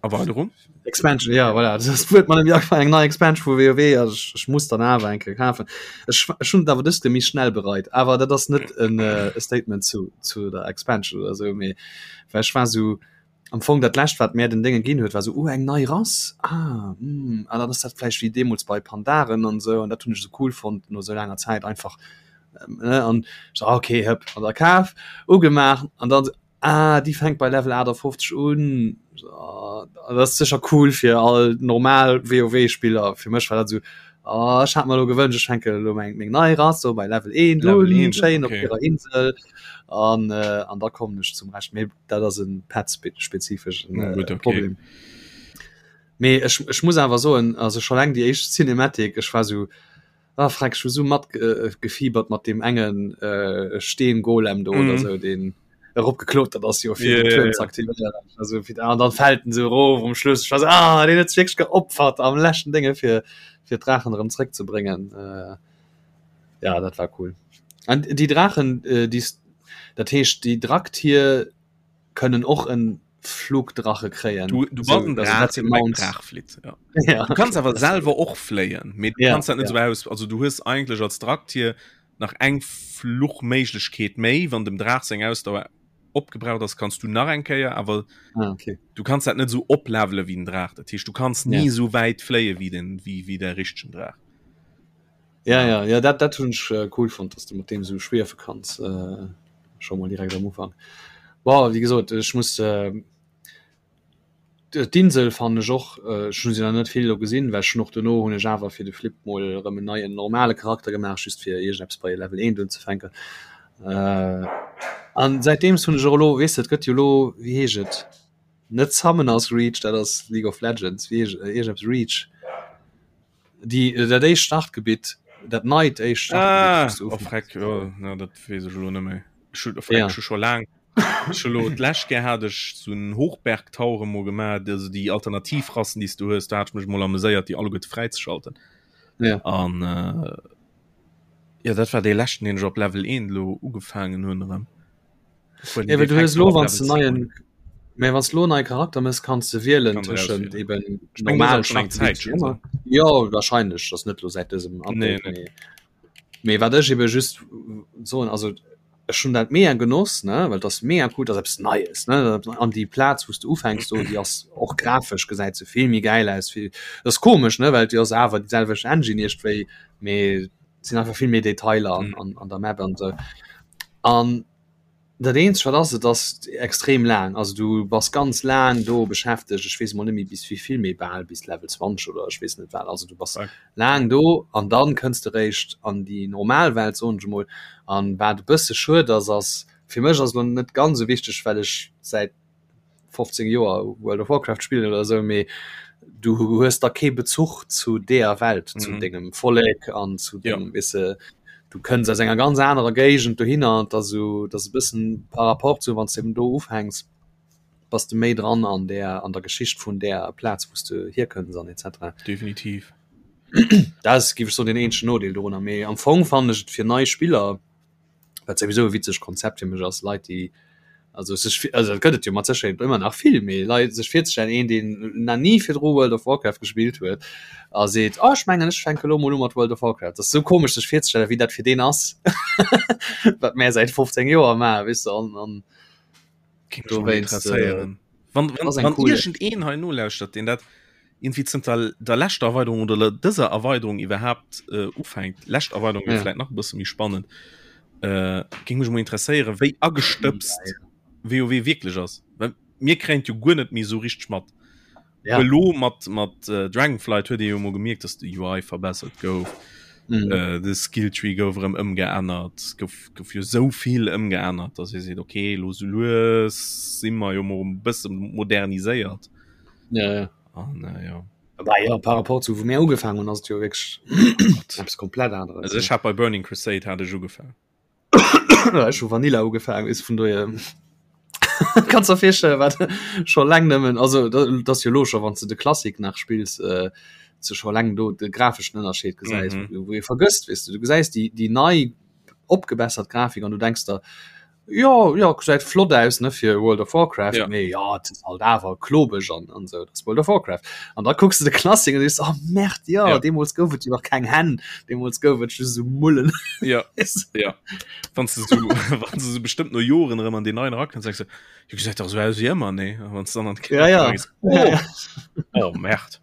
Erweiterung Expansion ja voilà. das huet man eng nei Expansion vu WoW also ech, ech muss dann awer eng Kéier kafen ech, ech hunn awer dëst méi schnell bereit awer dat ass net en äh, e Statement zu zu der Expansion oder sou mee well ech war sou Am Fong dat lescht wat mär den Dénge ginn huet war sou, oh eng nei Rass, ah hm, ah dann ass dat vläicht wéi deemools bei Pandaren an sou an dat hunn ech sou cool fonnt no sou laanger Zäit einfach ne an ech sou, ah okay hëpp an da kaf, ugemaach an dann sou, ah déi fänkt bei Level 58 un, ah dat ass sécher cool fir all normal WoW Spiller, fir mech war dat sou, ah ech hat mer elo gewënscht ech fänke elo meng meng nei Rass sou bei Level 1 Level un, 1, schéin op okay. hirer Insel an an da kommen ech zum Rescht mee. Dat ass en Pad-spezifeschen äh, okay. Problem. Mee ech, ech muss awer soen, also schon eng déi éischt Cinematic, ech war so ah, freck, ech hu so mat äh, gefiebert mat dem engen äh, Steengolem do mm. oder mhm. so den eropgeklotert ass jo fir yeah, den Turm ze aktivieren. Also fir an dann fällt en so erof um Schluss. Ich war so, ah, den huet sech wierklech geopfert am leschten Dinge fir fir d'Drachen erëm zréckzebréngen. Äh, ja, dat war cool. An déi Drachen, äh, déi Dat heescht déi Draktier kënnen och en Flugdrache kréien. Du, du bass en Draach, deen op engem Draach flitt. Ja. Ja, du kanns awer selwer och fléien, mee du ja, kanns dat net ja. sou aus. Also du hues eigentlech als Draktier nach eng Fluchméiglechkeet méi, wann dem Draach seng Ausdauer opgebraucht ass, kanns du nach eng Kéier, awer ah, okay. du kanns dat net sou oplevele wéi den Draach. Dat heescht du kanns ni ja. sou wäit fléie wéi den wéi, wéi der richtegen Draach. Ja, ja, ja dat, dat hunn ech äh, cool fonnt, dass du mat deem sou schwiefe kanns äh, scho mol direkt am Ufank. Boah, wéi gesot, ech muss äh, d'Insel fannen ech och äh, ech hunn se nach net vill elo gesinn, well ech hunn och dono hunn ech awer fir de Flip mol erëm en neien normale Charakter gemaach, just fir iergendeppes bei Level 1 unzefänken. Äh, an säitdeems hunn ech och elo, weess de, et gëtt jo elo, wéi heescht et, net Summoners Reach, dat ass League of Legends, wéi heescht iergendeppes Reach. Déi, dat éischt Startgebitt, dat neit éischt Ah, Startgebitt, oh, freck, jo, na, dat weess ech elo net méi. Ech hu, oh, freck, Ja. ech hu scho laang, ech hu lo d'lescht Kéier hat ech sou en Hochbergtower emol gemaach, also déi Alternativrassen, déi s du hues, do hat ech mech emol ameséiert, déi alleguerte fräizeschalten. Ja. An, äh, jo, dat war dee leschten, deen ech op Level 1 elo ugefaangen hunn erëm. Ja, well du hues lo wann du neien mä wann du lo neie Charakter mëss kanns du wielen tëschent eben normal Ja wahrscheinlech ass net lo säit dësem Update nee, nee. Mee wat ech eben just soen also. Ech hunn dat mega genoss, ne, well et ass mega cool, et ass eppes Neies, ne, an déi Plaz wou s de ufänks do, déi ass och grafesch gesäit se vill méi gäil aus, vill, dat ass komesch, ne, well et ass awer déi selwecht Engine iergendwéi, mee et sinn einfach vill méi Detailer an, an, an der Map an esou. An dat eenzegt wat ass, et ass extrem laang, also du bass ganz laang do beschäftegt, ech weess emol net méi bis wéi vill, mee bal bis Level 20 oder ech weess net wat, also du bass laang do an dann kënns de réischt an déi normal Welt soen ech emol. An wat e bësse schued ass, ass fir mech ass elo net ganz esou wichteg, well ech säit 15 Joer World of Warcraft spillen oder esou, mee du hues da kee Bezuch zu deeër Welt, zu mhm. dengem Vollek an zu dengem ja. wisse du kënns aus enger ganz anerer Géigend dohinner an da so dat e bëssen par rapport zu wann du eben do ufänks bass de méi dran an der an der Geschicht vun der Plaz wou s de hierkënns an etc. Definitiv. Dat ass géif ech soen den eenzegen Nodeel dorunner, mee am Fong fannen ech et fir nei Spiller, wat souwisou e witzegt Konzept fir mech ass, Leit déi also sech also dat gëtt et jo mat Sécherheet ëmmer nach vill, mee Leit sech virzestellen een deen nach ni virdru World of Warcraft gespillt huet a seet, oh ech mengen ech fänke lo mol u mat World of Warcraft, dat ass sou komesch sech virzestellen wéi dat fir deen ass wat mär säit 15 Joer maachen, weess de an an Äh, wann, wann, wann cool irgend een hei nolauschtert, den dat irgendwie zënter der leschter Erweiterung oder dëser Erweiterung iwwerhaapt äh, ufänkt, lescht Erweiterung ja. vielleicht nach e bësse méi spannend, äh, géing mech mol interesséieren, wéi agestëbst ja, ja. WoW wierklech ass. Well mir kréien jo guer net méi sou richteg mat. Ja. Elo mat mat äh, Dragonflight huet ee jo mol gemierkt, dass de UI verbessert gouf. Mhm. Äh, de Skilltree gouf erëm ëmgeännert, gouf, gouf jo sou vill ëmgeännert, dass ee seet okay, lo sou lues si mer jo mol e bësse moderniséiert. Ja, ja. An äh, ja. Aber ja, par rapport zu wou mir ugefaangen hunn, ass et jo wierklech eppes komplett aneres. Also ech hat bei Burning Crusade hat ech ugefaangen. Ech hu Vanilla ugefaangen, is vun dohier kannst der virstellen wat scho laang nëmmen also dat ass jo lo scho wann s de de Classic nach spills äh, ze scho laang do de grafeschen Ënnerscheed gesäis, mm -hmm. wou ee vergësst weess de du gesäis déi déi nei opgebessert Grafik an du denks der jo jo gesäit flott aus ne fir World of Warcraft ja. mee ja et ass halt awer klobeg an an sou dat ass World of Warcraft an da kucks de de Classic an sees oh Merd ja, ja. deemools gouf et jo nach keng Hänn deemools gouf et just sou Mullen ja ja wann du so wann du so bestimmt no Joren erëm an den neien erakënns denkst du jo gesäit dach sou aus wéi ëmmer nee a wann du dann an d'Kino ja, ja. gees oh, ja, ja. oh Merd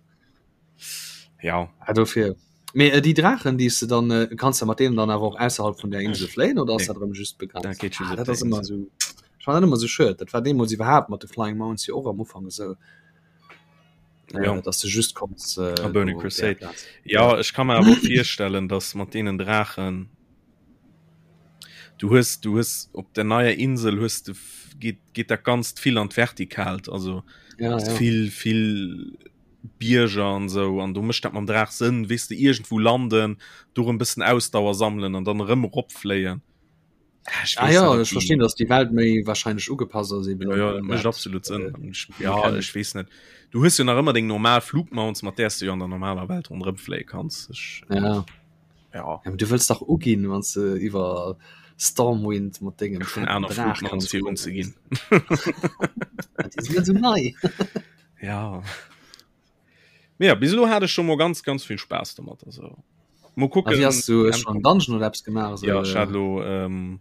ja ah, dofir Mee äh, déi Draachen, déi s de dann äh, kanns de mat deenen dann awer och ausserhalb vun der Insel fléien oder ass Nee. dat erëm just begrenzt? Dat geet just Ah, op dat der ass ëmmer Insel. esou ech fand dat ëmmer esou schued. Dat war deemools iwwerhaapt mat de Flying Mounts jo och am Ufank esou, äh, Ja. dass de just konns äh, A Burning do op där Crusade. Plaz. Ja, ech kann mer awer och virstellen, dass mat deenen Draachen du hues du hues op der neier Insel hues de geet geet dat ganzt vill an d'Vertikalt, also Ja, hues ja. vill vill Bierger an esou an do mécht dat mam Draach Sënn, weess de, iergendwou landen, do erëm bëssen Ausdauer sammelen an dann erëm eropfléien. Ah, ech ah, ja, ech verstinn, dass déi Welt méi wahrscheinlech ugepasst ass eben. Ja, ja, dat mécht absolut Sënn. Ech, ja, ech weess net. Du hues jo nach ëmmer deng normal Flugmounts, mat där s du jo an der normaler Welt ronderëm fléie kanns. Ech, ja. Ja. Ja, du wëlls dach uginn, wann s de iwwer Stormwind mat dengem Ech hunn aner Flugmounts fir unzeginn. Déi sinn net esou nei. Ja. Mee ja, bis elo hat ech schon mol ganz ganz vill Spaass domat also. Mo kucken. Wie hast du schon Dungeon oder Apps gemacht? So, ja, ich hat lo ähm,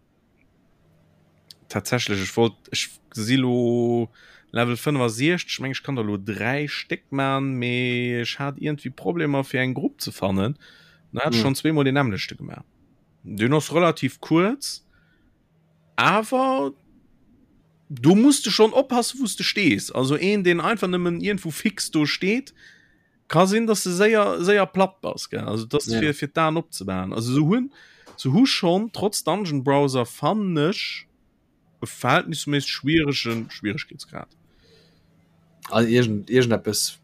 tatsächlich ich wollt ich si lo Level 65 ich meng ich kann da lo drei Steck man mee ich hat irgendwie Problemer fir eng Grupp ze fannen. Da hat hm. schon zweemol den nämmlechte gemacht. Den ass relativ kurz. Awer do muss de schon oppassen wous de stees. Also een deen einfach nëmmen iergendwou fix do steet, ka sinn dass de séier séier platt bass gell. Also dat ass fir fir d'Aen opzemaachen. Also se hunn se hu schonn trotz Dungeon Browser fannen ech e verhältnisméisseg schwieregen Schwieregkeetsgrad. Also iergend iergendeppes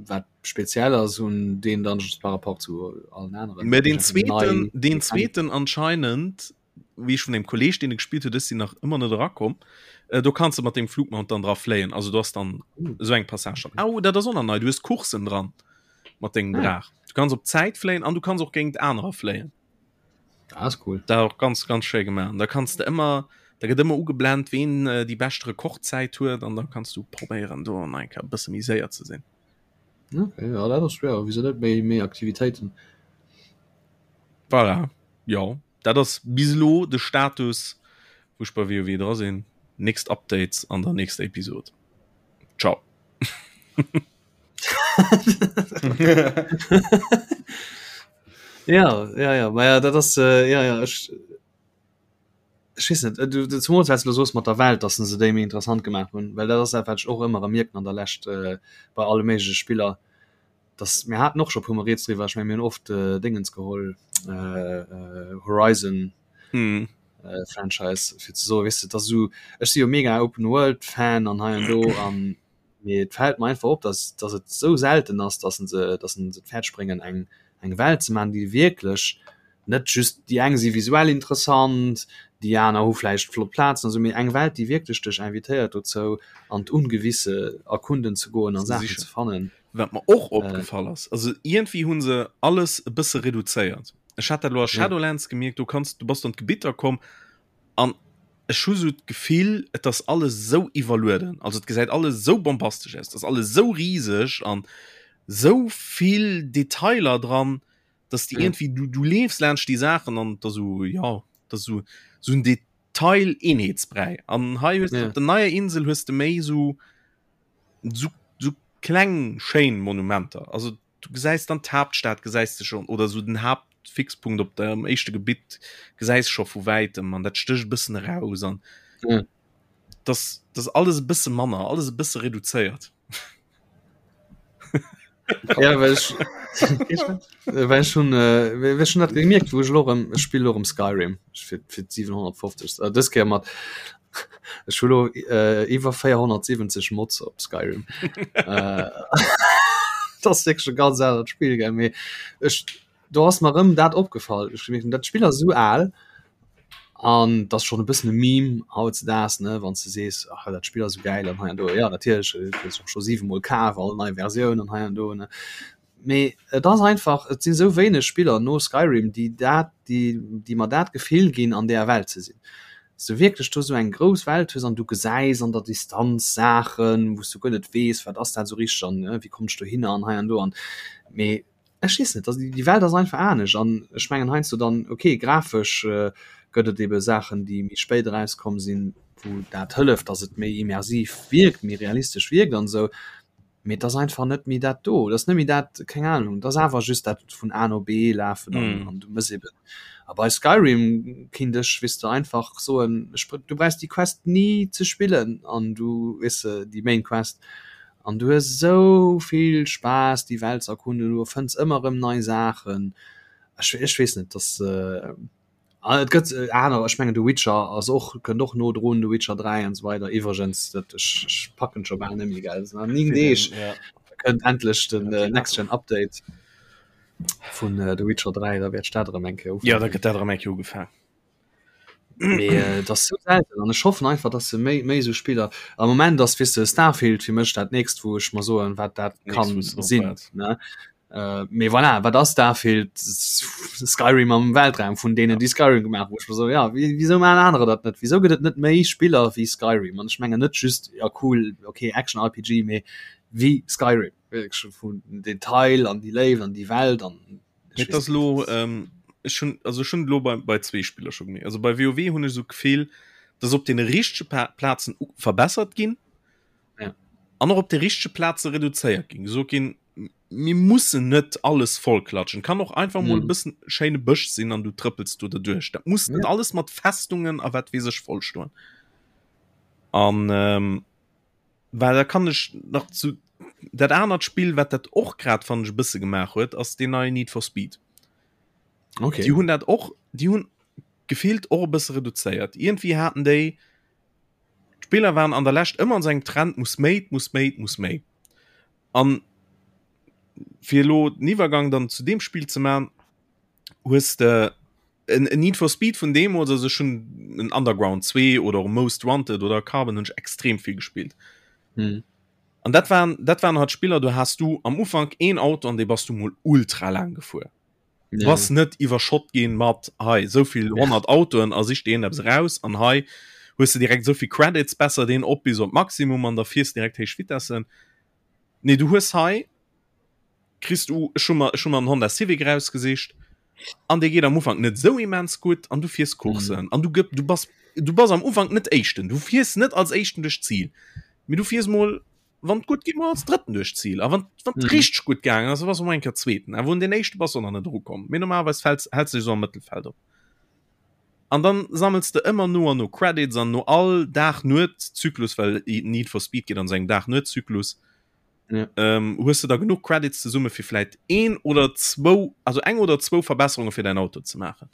wat speziell ass un deen Dungeons par rapport zu allen aneren. Mä deen zweeten deen zweeten anscheinend wéi ech vun engem Kolleg deen e gespillt huet, ech sinn nach ëmmer net erakomm, äh, do kanns de mat dengem Flugmount dann dra fléien. Also du hast dann mm. esou eng Passage dann. Au, dat ass och nach nei, du hues Coursen dran mat dengem ah. Draach. Du kanns op Zäit fléien an du kanns och géint anerer fléien. Das ist cool. Da och ganz ganz schéi gemaach. Da kanns de ëmmer da gëtt ëmmer ugeblend, ween äh, déi bescht Rekordzäit huet an da kanns du probéieren do an enker bësse méi séier ze sinn. Okay, ja, dat ass schwer. Wieso net méi méi Aktivitéiten? Voilà. Jo, dat ass bis elo de Status. Wou ech bei WoW dra sinn. Nächst Updates an der nächster Episode. Ciao. Ja, ja, ja, ma ja, dat ass äh, ja, ja, ech ech weess net, du, du zumools wat s du elo soos mat der Welt, dass se déi méi interessant gemaach hunn, well dat ass dat wat ech och ëmmer erëm mierken an der Lescht äh, bei alle méigleche Spiller, dass mir haten och scho puer mol rieds driwwer, ech meng mir hunn oft äh, Dingens geholl äh, äh, Horizon mm. äh, Franchise fir ze soen, weess de, dass esou ech si jo mega Open World Fan an hei an do an Mee et fält mer einfach op, dass, dass et esou selten ass, dass se, dass se et fäerdeg bréngen, eng, eng Welt ze maachen, déi wierklech net just, déi eng si visuell interessant, déi aner hu vläicht flott Plazen an esou, mee eng Welt, déi wierklech dech invitéiert dozou, an d'Ungewisse erkunden ze goen a Saachen ze fannen. Wat mer och opgefall ass, also iergendwéi hu se alles e bësse reduzéiert. Ech hat dat elo a Shadowlands gemierkt, do kanns, du bass an d'Gebitter komm An ech hu sou d'Gefill, et ass alles sou iwwerlueden, also et gesäit alles sou bombastesch aus, et ass alles sou riseg an sou vill Detailer dran, dass de iergendwéi, du, du leefs laanscht déi Saachen an et ass sou, jo, et ass sou, sou en Detail-Eenheetsbräi. An hei hues de op der neier Insel hues de méi sou, sou, sou kleng schéin Monumenter, also du gesäis dann d'Haaptstad gesäis de schon oder sou den Haaptfixpunkt op dem éischte Gebitt gesäis scho vu wäitem an dat stécht e bëssen eraus an ja. das das alles e bësse manner alles e bësse reduzéiert. Ja, well ech, well ech hun äh, well ech hun dat gemierkt, wou ech elo erëm, ech spill elo erëm Skyrim fir fir 750. Äh, dës Kéier mat Ech hu lo äh, iwwer 470 Mods op Skyrim. äh, das ass wierklech e ganz anert Spill, gell? Mee ech, do ass mer rëm dat opgefall. Ech gemierkt, dat Spill ass esou al an dat ass schonn e bëssen e Meme hautzedaags, ne, wann s de sees, ach dat Spill ass esou gäil an hei an do. Ja, natierlech, et hues och scho 7 mol kaf, all nei Versioun an hei an do, ne. Mee et ass einfach, et sinn esou wéineg Spiller no Skyrim, déi dat, déi, déi mer dat Gefill ginn, an deeër Welt ze sinn. Dass du wierklech do esou eng grouss Welt hues an du gesäis an der Distanz Saachen, wou s du guer net weess, wat ass dat esou richteg an wéi kommen ech dohinner an hei an do an. Mee ech weess net, déi Welt ass einfach anescht an ech mengen heiansdo dann, okay, grafesch gëtt et ebe Saachen, déi méi spéit erauskomm sinn, wou dat hëlleft, dass et méi immersiv wierkt, méi realistesch wierkt an esou. Mee et ass einfach net méi dat do. Et ass net méi dat, keng Ahnung, et ass awer just dat vun A no B lafen an, mm. an du mëss eben. A bei Skyrim kinnt ech, weess de, einfach soen, ech, du brauchst déi Quest ni ze spillen an du, weess de, déi Main Quest. An du hues esou vill Spaass, déi Welt ze erkunden, du fënns ëmmer erëm nei Saachen. Ech, ech weess net, dass. Äh, Ah, et gëtt äh, aner ech mengen de Witcher ass och kënnt och no drun de Witcher 3 an so weider iwwergens dat ech, ech packen scho bal nemmi gell an 9 Deeg ja. kënnt endlech den äh, Next Gen Update vun äh, The Witcher 3 da wäert dat erëm eng Kéier Ja da gëtt dat erëm eng Kéier ugefaang. Mee äh, dat ass sou selten an ech hoffen einfach dass se méi méi sou Spiller am Moment ass weess de Starfield fir mech dat nächst wou ech mer soen wat dat kann sinn ne Äh, mee voilà, wat ass Starfield? Skyrim am Weltraum vun deenen, déi Skyrim gemaach hunn. Ech so, ja, wieso maachen anerer dat net? Wieso gëtt et net méi Spiller wéi Skyrim? An ech mengen net just, ja cool, okay, Action RPG, mee wéi Skyrim. Wierklech vun Detail an déi Léift an déi Welt an Mee et ass lo, ähm, ech hunn, also ech hunn lo bei, bei zwee Spiller scho gemierkt. Also bei WoW hunn ech esou d'Gefill, dass op deene richtege Plazen verbessert ginn. Ja. An och op de richtege Plaze reduzéiert ginn. Gesot ginn, mir mussen net alles vollklatschen. Kann och einfach mol e bëssen schéine Bësch sinn an du trëppels do derduerch. Dat muss net alles mat Festungen a wat weess ech vollstoen. An ähm, well da kann ech nach zu dat anert Spill, wat dat och grad fannen ech e bësse gemaach huet, ass deen neien Need for Speed. Okay. Déi hunn dat och, déi hunn gefillt och e bësse reduzéiert. Iergendwéi haten déi, d'Spiller waren an der Lescht ëmmer an esou engem Trend, muss méi, 't muss méi, 't muss méi. An fir elo den Iwwergang dann zu deem Spill ze man, hues de en, en Need for Speed vun deemools, also ech hunn en Underground 2 oder och Most Wanted oder Carbon hunn ech extrem vill gespillt. Hm. An dat waren, dat waren halt Spiller, do has du am Ufank een Auto an dee bass du mol ultra laang gefuer. Du bass net iwwerschott ginn mat hei souvill 100 Autoen a sich deen eppes eraus an hei hues de direkt souvill Credits, besser deen op bis op d'Maximum an da fiers direkt héich Vitessen. Nee du hues hei kriss du ech hu mer ech hu mer en Honda Civic erausgesicht. An dee geet am Ufank net sou immens gutt an du fiers Coursen an du gëpp du bass du bass am Ufank net Éischten, du fiers net als Éischten duerch d'Zil, mee du fiers mol wann et gutt geet mol als Drëtten duerch d'Zil a wann wann et richteg gutt gaangen ass, da bass du mol eng Kéier Zweeten, awer un deen Éischte bass du nach net erukomm, mee normalerweis fäls häls de dech esou am Mëttelfeld op. An dann sammels de ëmmer no an no Credits an no all Dag-Nuet-Zyklus, well Need for Speed geet an esou engem Dag-Nuet-Zyklus, ja. ähm, hues du da genug Credits zesumme fir vläit een oder zwou also eng oder zwou Verbesserunge fir dein Auto ze maachen.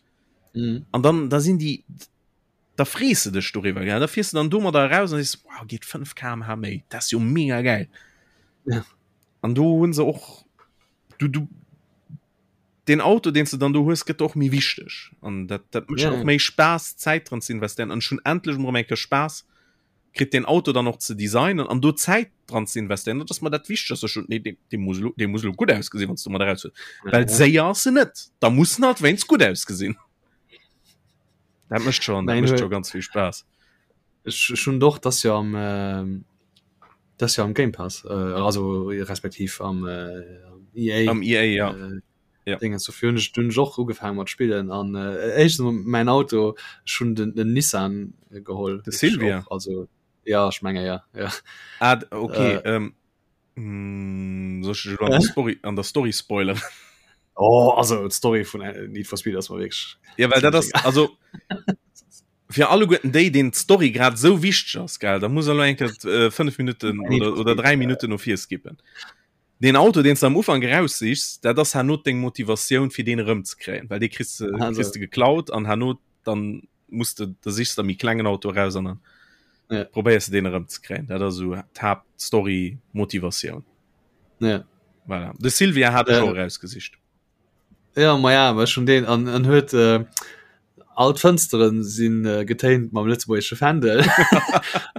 Mhm. An dann da sinn déi da frees de dech doriwwer gell? Da fiers du dann domadder eraus an sees wow geet 5 km/h méi, dat ass jo mega geil. Ja. An do hunn se och du du den Auto deen s de dann do hues gëtt och méi wichteg an dat dat mécht ja. och méi Spaass Zäit dran ze investéieren an schon endlech mol eng Kéier Spaass kritt den Auto dann och ze designen an do Zäit dran ze investéieren dat ass mer dat Wichtegst schon nee, dee, dee muss lo, dee muss lo gutt ausgesinn wann s du mat eraus hues ja, well séier ass se net da muss en halt wéinst gutt ausgesinn dat mécht schon dat mécht schon ganz vill Spaass Ech ech hunn doch das jo am äh, das jo am Game Pass äh, also respektiv am äh, EA am EA ja äh, ja. Dinge so hunn ech dunn och ugefaangen mat spillen an äh, éischtens mol mäin Auto ech hunn den, den Nissan geholl De Silvia och, also ja ech menge ja ja ah, okay äh, ähm, mm, soll ich an der Story an der Story spoilern oh also d'Story vun äh, Need for Speed ass mer wierklech ja well dat ass also fir alleguerten déi deen d'Story grad sou wichteg ass gell da muss er lo eng Kéier 5 Minuten oder, oder 3 Minuten no vir skippen. Den Auto deen s de am Ufank eraussichs, dat ass herno deng Motivatioun fir deen erëmzekréien, well dee kriss de kriss de geklaut an herno dann muss de da sichs de méi klengen Auto eraus an dann ja. probéiers de deen erëmzekréien. Dat ass esou d'Haaptstory Motivatioun. Ja. Voilà. De Silvia hat ech och erausgesicht. Ja ma ja war schon den an an huet äh, all d'Fënsteren sinn äh, getéint mam lëtzebuergesche Fändel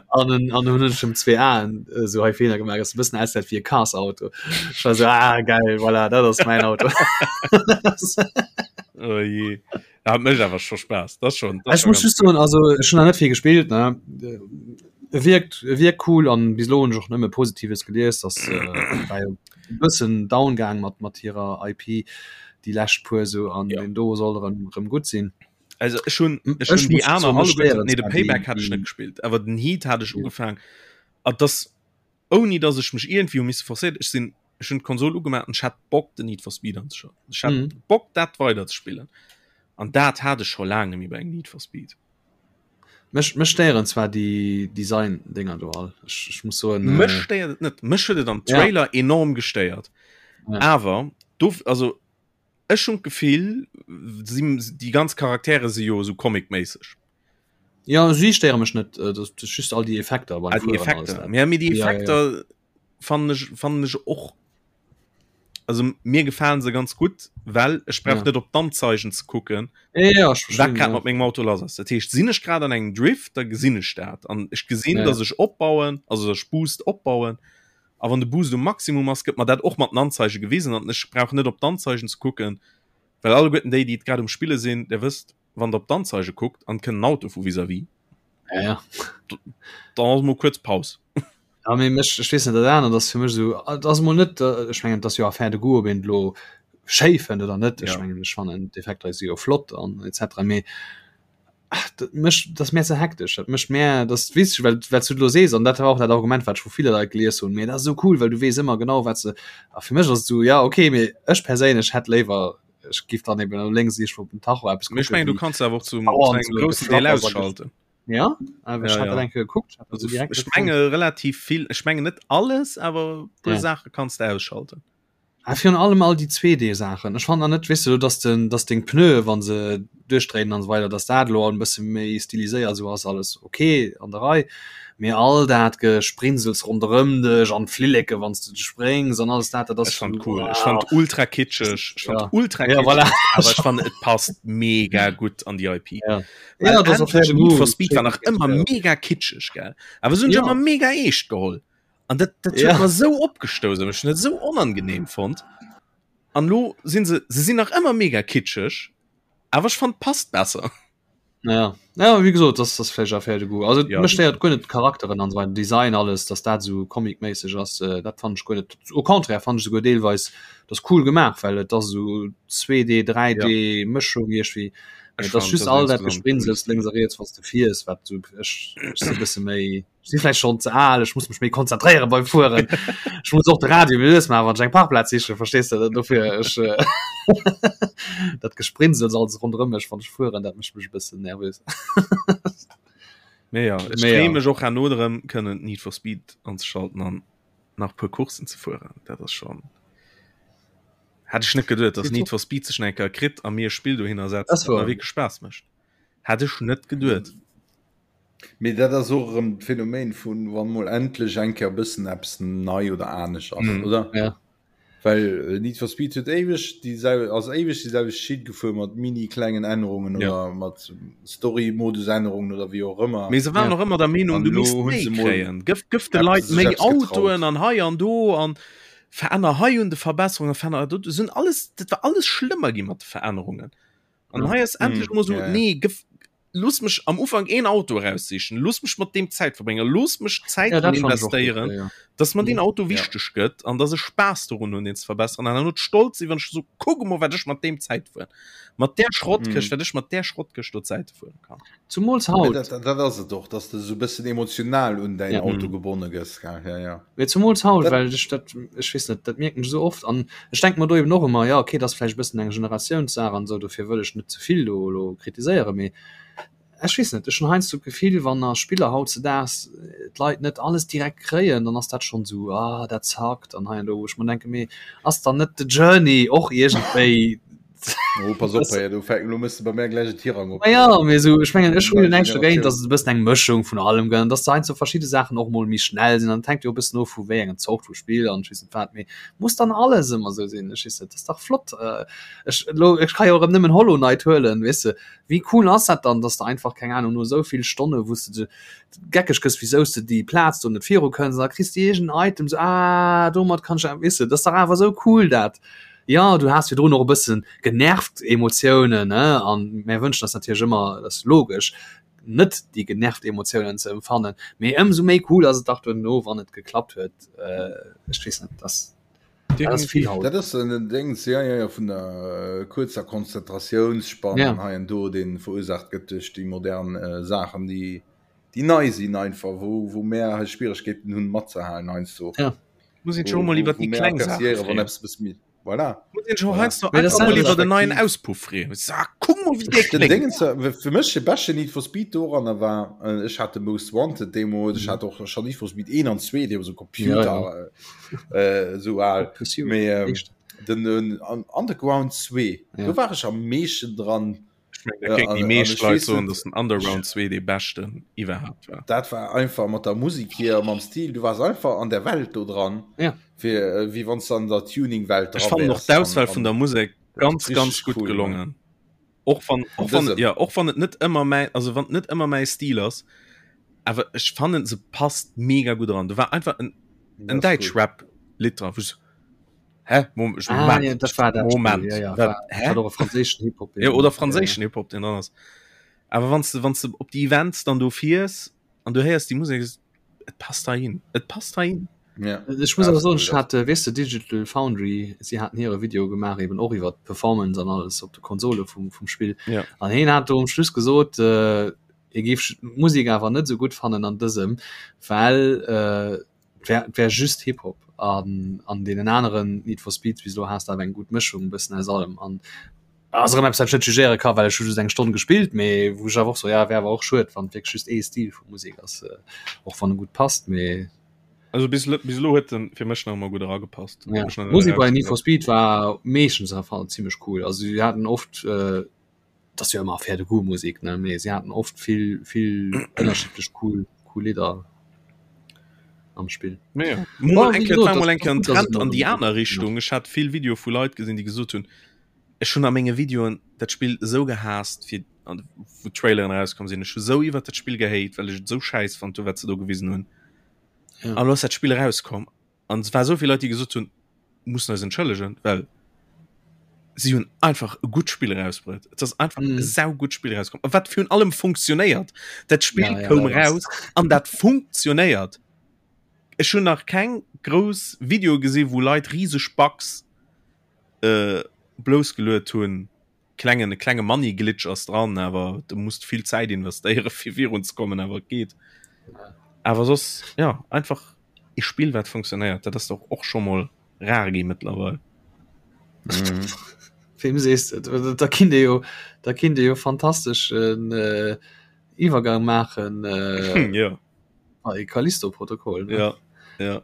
an en an hunn ech em zwee Aen äh, so hei Feeler gemaach ass e bëssen aussäit wéi e Cars-Auto. Ech war so ah geil voilà dat ass mäin Auto. Oh je. Dat mécht awer scho Spaass. Dat schon. Ech muss just soen also ech hunn nach net vill gespillt ne. E wierkt e wierkt cool an bis elo hunn ech och nëmme Positives gelies, dass äh, war jo e bëssen down gaang mat mat hirer IP déi lescht puer sou an ja. den do soll erëm erëm gutt sinn. Also ech hunn ech hunn déi aner alleguerten nee de Payback hat ech net gespillt, awer den Heat hat ech ja. ugefaang a das ouni dass ech mech irgendwie hu misse forcéiert ech sinn ech hunn d'Konsol ugemaach an ech hat Bock den Need for Speed anzeschalten. Ech hat mhm. Bock dat weider ze spillen. An dat hat ech scho laang net méi bei engem Need for Speed. Mech, mech stéieren zwar déi Design-Dinger do all. Ech, ech muss soen. Mech äh, stéiert et net. Mech huet et am Trailer ja. enorm gestéiert. Ja. Awer do also ech hunn d'Gefill, si, déi ganz Charaktere si jo esou comic-méisseg. Ja, si stéiere mech net, äh, das, das just all déi Effekter beim ah, déi Effekter. Ja, mee déi Effekter ja, ja. fannen ech, fannen ech och also mir gefalen se ganz gutt, well ech brauch ja. net op d'Anzeigen ze kucken ja, ja, wat grad ja. mat mengem Auto lass ass. Dat heescht sinn ech grad an engem Drift, da gesinn ech dat an ech gesinn, ja. dass ech opbauen, also ech Boost opbauen. A wann de Boost um Maximum ass, gëtt mer dat och mat den Anzeige gewisen an ech brauch net op d'Anzeigen ze kucken, well alleguerten déi, déi et grad um Spille sinn, der wësst, wann der op d'Anzeige kuckt an kënnt en Auto vu vis-à-vis, ja, ja. dann ass mol kuerz Paus. Ja, mee mech, ech weess net, dat anert ass fir mech esou, et ass emol net, ech mengen, et ass jo Affaire de goût, ob een et elo schéi fënnt oder net. Ech mengen, ech fannen d'Effekter si jo flott an et cetera, mee dat mécht, dat ass mär ze hektesch. Dat mécht mär, dat weess ech, well well s du et elo sees, an dat war och dat Argument, wat ech vu ville Leit gelies hunn, mee dat ass esou cool, well du weess ëmmer genau, wat se, a fir mech ass et esou, ja okay, mee ech perséinlech hätt léiwer, ech giff dann eben elo lénks iergendwou op den Tacho eppes kucken. Mee ech mengen, du kanns awer och zum engem groussen Deel ausschalten. Ja awer ech ja, ja. enke gekuckt also direkt ech menge relativ vill ech menge net alles awer ja. Sache kannst du ausschalten. Ah, virun allem all die 2D Saachen. Ech fand net wis du dass den dass deng Pneue wann se duerchdréinen an so weider dass dat lo en bësse méi stiliséiert so ass alles okay an der Rei. Mee all dat Gesprinsels ronderëm dech an d'Flilleke wann s du spréngs an alles dat dat ass Ech fand cool. Ech fand ultra kitscheg. Ech fand ja. ultra kitscheg, ja, voilà. awer ech fand et passt mega gutt an déi IP. Ja. Ja, das auf Need for Speed war nach ëmmer mega kitscheg gell awer se hunn ja. ëmmer mega eescht geholl an dat, dat ja. huet mer sou opgestouss ech net sou onangenehm fonnt an lo sinn se se sinn nach ëmmer mega kitscheg awer ech fand passt besser. Ja. Ja, wie gesot, das das vläicht Affaire de goût. Also ja. mech stéiert guer net d'Charakteren an esou Design alles, dass dat esou comicméisseg ass, äh, dat fand ech guer net. Au contraire fand ech esouguer deelweis das cool gemaach, well et ass esou 2D, 3D ja. Mëschung iergwéi. Et ass just all dat Gesprinsels lénks a riets, wann s de fiers, wat sou ech, ech si bësse méi si vläicht schonn ze al, ech muss mech méi konzentréiere beim Fueren. Ech muss och de Radio méi lues maachen, wann ech eng Parkplaz sichen, verstees de? Dofir ech äh, dat Gesprinsels alles ronderëm mech, wann ech fueren, dat mécht mech e bëssen nervös. Mee ja, ech Mee ja. freeë mech och herno drëm, kënnen Need for Speed anzeschalten an nach e puer Courssen ze fueren. Dat ass schon Hätt ech net geduet, dass Need for Speed sech nach eng Kéier kritt a mir e Spill dohinner setzt, Das dat mer war. wierklech Spaass mécht. Hätt ech net geduet. Mee dat ass och erëm d'Phänomen vun, wann mol endlech eng Kéier e bëssen eppes nei oder anescht ass, Mhm. oder? Ja. Well Need for Speed huet éiweg déi sel ass éiweg déi selwecht Schitt gefuer mat mini klengen Ännerungen Ja. oder mat Story-Modus-Ännerungen oder wéi och ëmmer. Mee se waren Ja. och ëmmer der Meenung, An du elo misst hunn méi se mol kréien. Gëff, gëff de eppes Leit sech méi eppes getraut. Autoen an hei an do an veränner hei un de Verbesserungen, veränner do. Sinn alles, dat war alles schlëmmer gi mat de Verännerungen. An hei ass endlech Mhm. mol sou, Ja, ja. nee, gëff, looss mech am Ufank een Auto eraussichen, looss mech mat deem Zäit verbréngen, looss mech Zäit Ja, dran dat fand ech och gutt, investéieren, ja, ja. dass mer deen Mhm. Auto Ja. wichteg gëtt an dass ech Spaass dorun hunn, deen ze verbesseren an dann stolz sinn, wann ech so kuck emol, wat ech mat deem Zäit fueren, mat där Schrottkëscht, Mhm. wat ech mat där Schrottkëscht do Zäite fueren kann. Zumools Mee haut. dat, dat ass et och, dass de sou bëssen emotional un däin Ja. Auto Mhm. gebonne gëss, gell? Ja, ja. Mee zumools haut, Dat, well ech dat, ech weess net, dat mierken ech esou oft an ech denke mer do eben och ëmmer, jo okay, dat ass vläicht e bëssen eng Generatiounssaach an esou, dofir wëll ech net ze vill do elo kritiséieren, mee ech weess net, ech hunn heiansdo d'Gefill, wann a Spiller hautzedaags d'Leit net alles direkt kréien, dann ass dat schonn esou, ah dat zackt an hei an do, wou ech mer denken, mee ass dann net de Journey och iergendwéi Oh, pass op, hey, du fäng, lo mëss du bei mir gleich en Tirang op. Ma ja, mee sou, ech mengen, ech hu jo Nei näischt dogéint, Generatioun. dass et e bëssen eng Mëschung vun allem gëtt an dass heiansdo verschidde Saachen och mol méi schnell sinn an et hänkt jo e bëssen of vu wéi engem Zort vu Spill an ech weess net wat, mee muss dann alles ëmmer sou sinn? Ech weess net, dat ass dach flott. Ech elo, ech ka jo erëm nëmmen Hollow Knight huelen, weess de, wéi cool ass dat dann, dass de einfach, keng Ahnung, no esou vill Stonne wou s de geckeg gëss, wisou s de déi Plaz do net viru kënns an da kriss de iergend en Item, sou, ah domat kann ech, weess de, dat ass dach awer esou cool dat. Jo, du has virdrun och e bëssen genervt Emotiounen, ne, an mär wënschen eis natierlech ëmmer, dat ass logesch, net déi genervt Emotiounen ze empfannen, mee ëmsou méi cool ass et dach duerno, wann et geklappt huet. Ech weess net, dat ass vill haut. Dat ass en Déngs, jo, jo, jo, vun der kuerzer Konzentratiounsspann Ja. hei an do, dee verursaacht gëtt duerch déi modern Saachen, déi, déi nei sinn einfach, wou, wou mär hei Schwieregkeeten hunn matzehalen heiansdo. Ja. Muss een schon mol iwwer déi kleng Saache wann eppes bësse méi voilà. Muss een schon Voilà. heiansdo Mee das einfach mol sind iwwer den neien respektiv- Auspuff freeën. Sa, kuck mol wéi dee Den kléngt. Dingens, äh, fir mech de beschte Need for Speed doranner war äh, ech hat de Most Wanted deemools, ech hat och schon Need for Speed 1 an 2 dee so Computer Ja, äh, äh, so al Pursuit, Mee, ähm, éischt. den, den an Underground 2 Ja. do war ech am meeschten dran Ech mengen, da kéinten déi An- an meescht ech Leit weess soen, net- dass den Underground 2 dee beschten iwwerhaapt war. Dat war einfach mat der Musik hier mam Stil du wars einfach an der Welt do dran Ja. fir äh, wéi wann du an der Tuningwelt Ech fannen och wärst. d'Auswahl An- vun der Musek ganz richtig ganz gutt cool, gelongen. Och wann och wann dësem. ja och wann et net ëmmer mäin also wann et net ëmmer mäi Stil ass, awer ech fannen se passt mega gutt eran. Do war einfach en an- en das ist däitsch cool. Rap Lidd dran, wou ech so Hä? Mom ech Ah, Moment ja, dat war dat Moment Spiel, ja, ja, wat war, hä? hat och e franséischen Hip-Hop Ja, oder franséischen Hip-Hop deen dran ass. Awer wann s de wann s de op déi Events dann do fiers an du héiers déi Musek, et passt heihin, et passt heihin. Ja. Ech muss Ja, awer das soen, ist ech hat, äh, weess de, Digital Foundry, si haten hire Video gemaach eben och iwwer d'Performance an alles op de Konsole vum, vum Spill. Ja. An hien hat do um Schluss gesot, äh, hie géif d'Musek awer net esou gutt fannen an dësem, well äh, wär, wär just Hip-Hop an an deenen aneren Need for Speeds bis elo has de awer eng gutt Mëschung e bëssen aus allem an ass erëm eppes wat ech net jugéiere ka well ech hu just eng Stonn gespillt mee wou ech awer och so ja wär awer och schued wann wierklech just ee Stil vu Musek ass äh, och wann e gutt passt mee Also bis elo bis elo huet en fir mech nach ëmmer gutt eragepasst. ja. Mech nach net Musek bei Need for erausgesat. Speed war meeschtens am Fall zimmlech cool also si haten oft äh, dat ass jo ëmmer Affaire de goût Musek ne mee si haten oft vill vill ënnerschiddlech cool cool Lidder am Spill. Mee ja. Bon, Mol wéi eng Kéier, gesot, war mol dat eng Kéier ass en gutt, dass et Trend elo an déi erëm aner Richtung. Ech hat vill Videoe vu Leit gesinn, déi gesot hunn, ech hunn a menge Videoen dat Spill esou gehaasst fir an wou d'Traileren erauskomm sinn. Ech hu sou iwwert dat Spill gehate, well ech et sou schäiss fonnt hu wat se do gewisen hunn. Ja. An elo ass dat Spill erauskomm an et war esou vill Leit, déi gesot hunn, mussen eis entschëllegen, well. Si hunn einfach e gutt Spill erausbruet. Et ass einfach mm. e saugutt Spill erauskomm. A wat virun allem funktionéiert. Dat Spill ja, ja, koum raus an dat funktionéiert. Ech hunn nach keng grouss Video gesi wou Leit riseg Bugs äh, bloussgeluet hunn. Klengen e klenge Money Glitch ass dran, awer du musst vill Zäit investéiere fir virun ze kommen, awer et geet. Awer soss ja einfach e Spill wat funktionéiert, dat ass doch och scho mol rar gi mëttlerweil. Mhm. Wem sees de? Da kinnt ee jo da kinnt ee jo fantasteschen äh, Iwwergang maachen äh, ja. bei Callisto-Protokoll. Ne? Ja. Ja.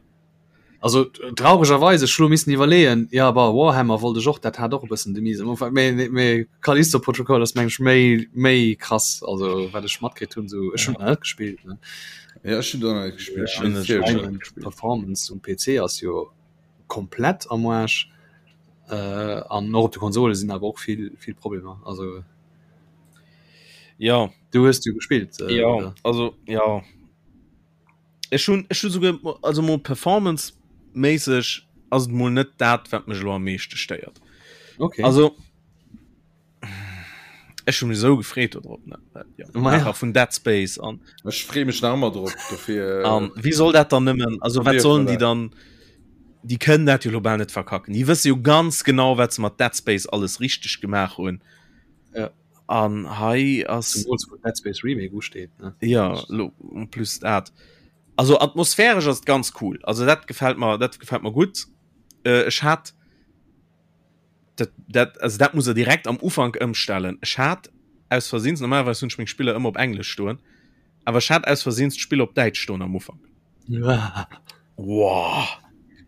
Also trauregerweis ech lo missen iwwerleeën, ja bah Warhammer wollt ech och, dat hat och e bëssen de miesen Ufank, mee mee Callisto Protocol ass meng ech méi méi krass, also wat ech matkritt hunn sou, ech hunn net gespillt ne. Ja ech hunn och net gespillt. Ech hunn net gespillt. Performance um PC ass jo komplett am Arsch äh, an och op de Konsole sinn awer och vill vill Problemer, also Ja. Du hues jo gespillt äh, ja, oder? Also ja. Ech hunn ech hu souguer also mol performance méisseg ass et mol net dat wat mech elo am meeschte stéiert. Okay. Also ech hu mech esou gefreet do drop ne ja, Ma ja. Maacher vun Dead Space an Ech free mech nach ëmmer drop dofir. An wéi soll dat dann nëmmen also wat sollen déi dann déi kënnen dat jo lo bal net verkacken. Déi wësse jo ganz genau wat se mat Dead Space alles richteg gemaach hunn. Ja. An hei ass Zemools wou Dead Space Remake usteet ne. Ja lo en plus dat. Also atmosphäresch ass et ganz cool. Also dat gefält mer dat gefält mer gutt. Äh, ech hat dat, dat, also dat muss er direkt am Ufank ëmstellen. Ech hat aus Versehens, normalerweis hunn ech meng Spiller ëmmer op Englesch stoen, awer ech hat aus Versehens d'Spill op Däitsch stoen am Ufank. Wow.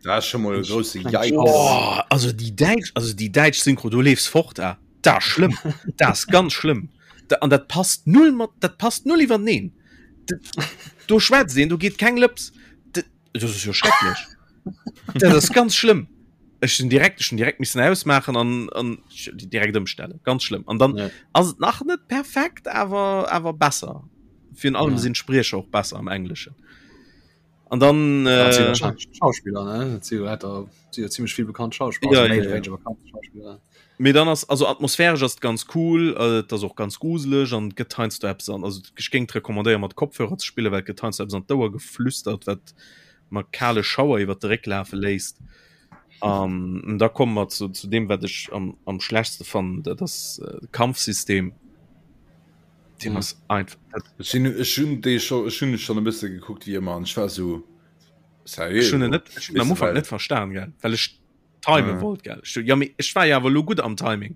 Dat ass scho mol e grousse Yikes. Oh, also déi däitsch, also déi däitsch Synchro, do leefs fort, ah. Dat ass schlëmm. Dat ass ganz schlëmm. Da, an dat passt null mat, dat passt null iwwerteneen. Do schwätzt een, do geet keng Lëps. Dat ass jo schrecklech. Dat ass ganz schlëmm. Ech sinn direkt, ech hunn direkt missen ausmaachen an, an direkt ëmstellen. Ganz schlëmm. An dann ja. ass et nach net perfekt, awer, awer besser. Virun allem ja. sinn d'Spriecher och besser am Engleschen. An dann äh, Schauspieler ne? ziemlich viel bekannt Schauspieler ja, ja, ja. Schauspieler. Mee dann ass also atmosphäresch ass ganz cool äh, dat ass och ganz gruseleg an gëtt heiansdo eppes an also ech géing recommandéiere mat Kopfhörer ze spillen, well gëtt heiansdo eppes an d'Ouer geflüstert, wat mer kale Schauer iwwer de Réck lafe léisst. An da komme mer zu, zu deem wat ech am, am schlechtste fannen, dat ass äh, Kampfsystem. Deen ass einfach dat Ech sinn ech hunn dee scho ech hunn schonn e bësse gekuckt wéi ëmmer an ech war sou seriö Ech hunn en net ech hunn am Weess de Ufank well net verstan gell, well ech time Ja. wollt gell. Ech so, ja mee ech war jo awer elo gutt am Timing.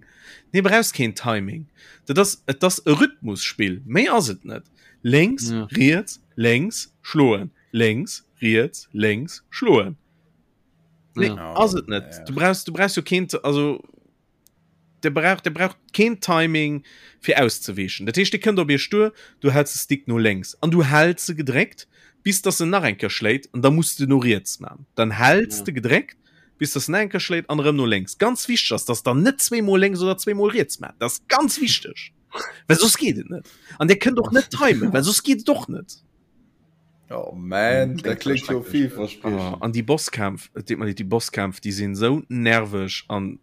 Nee brauchs keen Timing. Dat ass et ass e Rhythmusspill, méi ass et net. Lénks, Ja. riets, lénks, schloen, lénks, riets, lénks, schloen. Nee, Ja. ass et net. Ja. Du brauchs du brauchs jo keen also Der brauch, der brauch keen Timing fir auszeweechen. Dat heescht, dee kënnt op iech duer, du häls de Stick no lénks an du häls se gedréckt, bis dass en nach eng Kéier schléit an da muss de no riets man. Dann häls Ja. de gedréckt, bis dass en nach eng Kéier schléit an erëm no lénks. Ganz wichteg ass, dass der net zweemol lénks oder zweemol riets maacht. Dat ass ganz wichteg, well soss geet et net. An dir kënnt och net timen, well soss geet et och net. Oh man, dat kléngt jo Oh, villverspriechend. an déi Bosskämpf, et deet mer leed, déi Bosskämpf, déi sinn esou nerveg an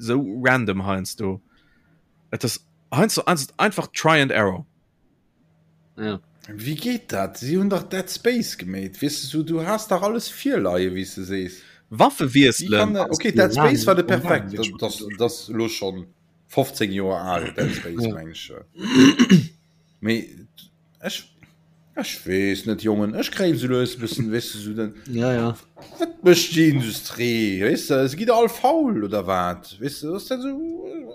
sou random heiansdo. Et ass heiansdo ass et einfach Try and Error. Ja. Wéi geet dat? Si hunn dach Dead Space gemeet, weess de, sou du has dach alles virleie wéi s de sees. Waffe Wéi wiesselen. kann dat? Okay, Dead Space war de perfekt, dat dat dat ass elo schonn 15 Joer al, Dead Space Ja. meng ech. Mee Ech, ech weess net Jongen, ech kréien sou lues e bëssen, weess de, sou den, Ja, ja. wat mécht déi Industrie, weess de, se gitt all faul oder wat, weess de, ass dat sou,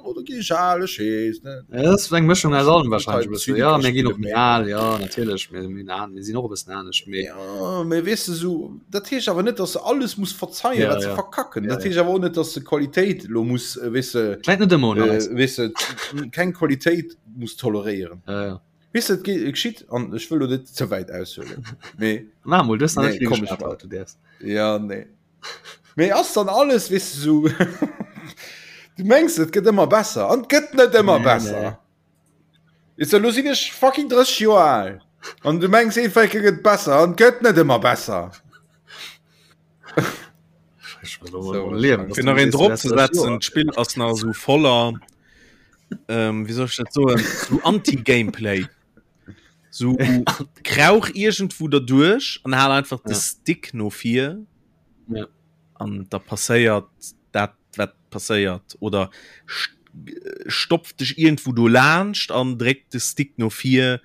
oder gi ech al, ech weess net. Ja, dat ass eng Mëschung aus allem wahrscheinlech e bëssen. Ja, mir ginn och méi al, ja, natierlech, mir, mir, mir sinn och e bëssen anescht, mee. Ja, mee weess de, sou, dat heescht awer net, dass se alles muss verzeien, Ja, wat se ja. verkacken. Ja, Dat ja. heescht awer och net, dass se Qualitéit elo muss, weess de, Läit net ëmmer un eis. weess de, keng Qualitéit muss toleréieren. Ja, ja. Weess de, et geschitt, an ech wëll lo net ze wäit aushuelen, mee. Maach mol, du hues nach net Nee, vill komm, ech geschwat mach. haut, du däerfs. Ja, nee. Mee ass dann alles, weess de, sou, du mengs, et gëtt ëmmer besser, an et gëtt net ëmmer Nee, besser. nee. Weess de, lo sinn ech fucking 30 Joer al, an du mengs, eenfalke gëtt besser, an et gëtt net ëmmer besser. Fir nach een drop ze setzen, d'Spill ass nach esou voller, ähm, wéi soll ech dat soen, sou Anti-Gameplay. Sou krauch iergendwou derduerch an hal einfach de Stick no vir. An da passéiert dat, wat passéiert. Oder stopf dech iergendwou do laanscht an dréck de Stick no vir.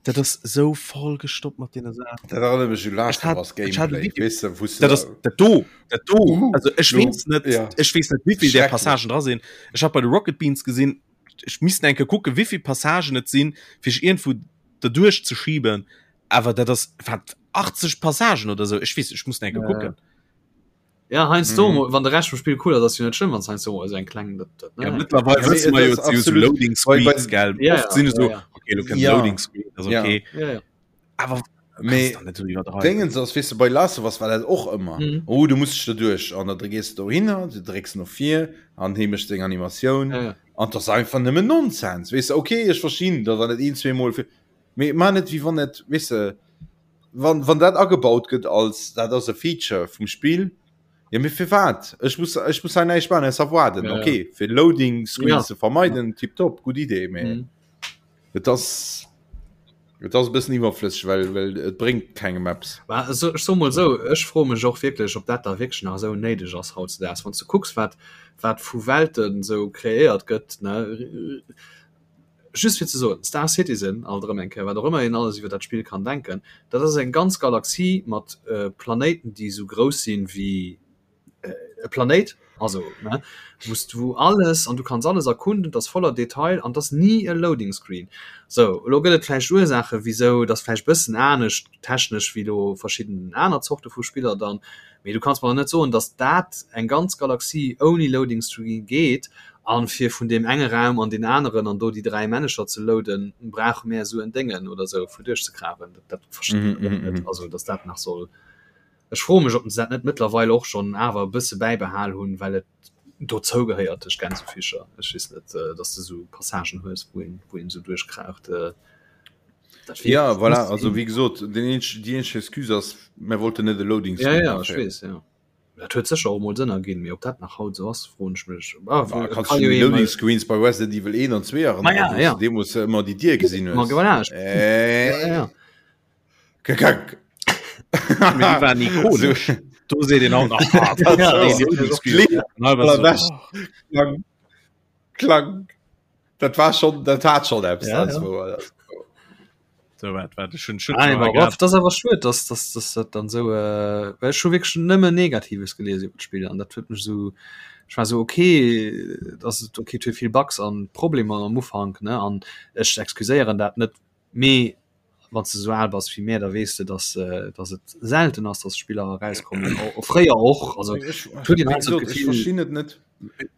Dat ass esou voll gestoppt mat deene Saachen. Dat erënnert mech u Last of Us Gameplay, weess de, wou s de. Dat ass dat do, dat do. Uh, also ech weess net, ja. ech weess net, wéivill där Passagen dra sinn. Ech hat bei de Rocket Beans gesinn, ech misst eng Kéier kucken, wéivill Passagen et sinn, fir sech iergendwou derduerch ze schiben. Awer dat ass wat 80 Passagen oder sou. Ech weess, ech muss eng Kéier kucken. Ja heiansdo mm. wann de Rescht vum Spiel cool ass, ass jo net schlëmm, wann heiansdo mol esou eng kleng dat, dat, ne? Ja, mittlerweile ja, wësse mer jo absolut Loading Screens gell ja, oft sinn so ja, ja. okay, du ja. Loading Screen das okay ja. Ja, ja. aber Mee Dingens ass weess de bei Last of Us war dat och ëmmer mm. oh du musst dech doduerch an da gees du dohinner du drécks no vir an hee mécht seng Animatioun ja, ja. an das einfach nëmmen Nonsens weess de okay ech verstinn dat wann et een zweemol fir mee man net wéi wann et weess de wann, wann dat agebaut gëtt als dat ass e Feature vum Spill, ja mee firwat? Ech muss, ech muss hei näischt maachen ausser waarden. Ja, okay, fir Loading Screens ja. ze vermeiden, tipptopp, gutt Idee, mee mhm. et ass et ass e bëssen iwwerflësseg, well, well et bréngt kengem eppes. Mä ech so mol sou, ech froe mech och wierklech, ob dat da wierklech nach esou néideg ass hautzedaags, wann s du kucks, wat, wat vu Welten esou kreéiert gëtt, ne? Just fir ze soen, Star Citizen, alt erëm eng Kéier, wat och ëmmer een alles iwwer dat Spill kann denken, dat ass eng ganz Galaxie mat Planéiten, déi esou grouss sinn wéi e Planéit, also ne, wou s du alles, an du kanns alles erkunden, et ass voller Detail an et ass ni e Loading Screen. Sou, elo gëtt et vläicht Ursaachen, wisou, et ass vläicht e bëssen anescht technesch wéi elo verschidden aner Zorte vu Spiller dann, mee du kanns mer net soen, datt dat eng ganz Galaxie ouni Loading Screen geet An fir vun deem enge Raum an deen aneren an do déi 3 Männecher ze loaden, brauche mär esou en Déngen oder esou fir duerchzekrawen. Dat, dat verstinn ech och net. Also, dass dat nach soll. Ech froe mech, ob se dat net mëttlerweil och schonn awer e bësse bäibehal hunn, well et dozou gehéiert, duerch Gänsefüßcher. Ech weess net, dass de esou Passagen hues, wou een, wou een esou duerchkraucht. Dat wier. Ja, voilà. Also, wéi gesot, den eenzeg, déi eenzeg Excuse ass, mär wollten net e Loading Screen. Ja, ja, ech weess, ja. Dat huet sécher och emol Sënn erginn, mee ob dat nach haut esou ass, froen ech mech. Ah, ah, kannst du Loading Screens bei Resident Evil 1 an 2 erinnern, ja, ja. deemools ëmmer déi Dier gesinn hues. Ma voilà, äh. ja, ja. Kak. War ikonesch. Do seet een auch nach ah, Klang. Klang. Dat war schon dat hat schon eppes. Ja, ja. So, wat, wat, schon, schon ah, das das awer schued dass dass dass dat dann so äh, well ech hu wierklech nëmmen Negatives gelies iwwer d'Spill an dat huet mech so ech war so okay dass et okay et huet vill Bugs an Problemer am Ufank ne an ech excuséieren dat net mee wann s de sou al bass wéi mär da weess de dass äh, dass et selten ass dass Spiller erauskommen o fréier och also Ech, huet een halt so ech d'Gefill verstinn et net.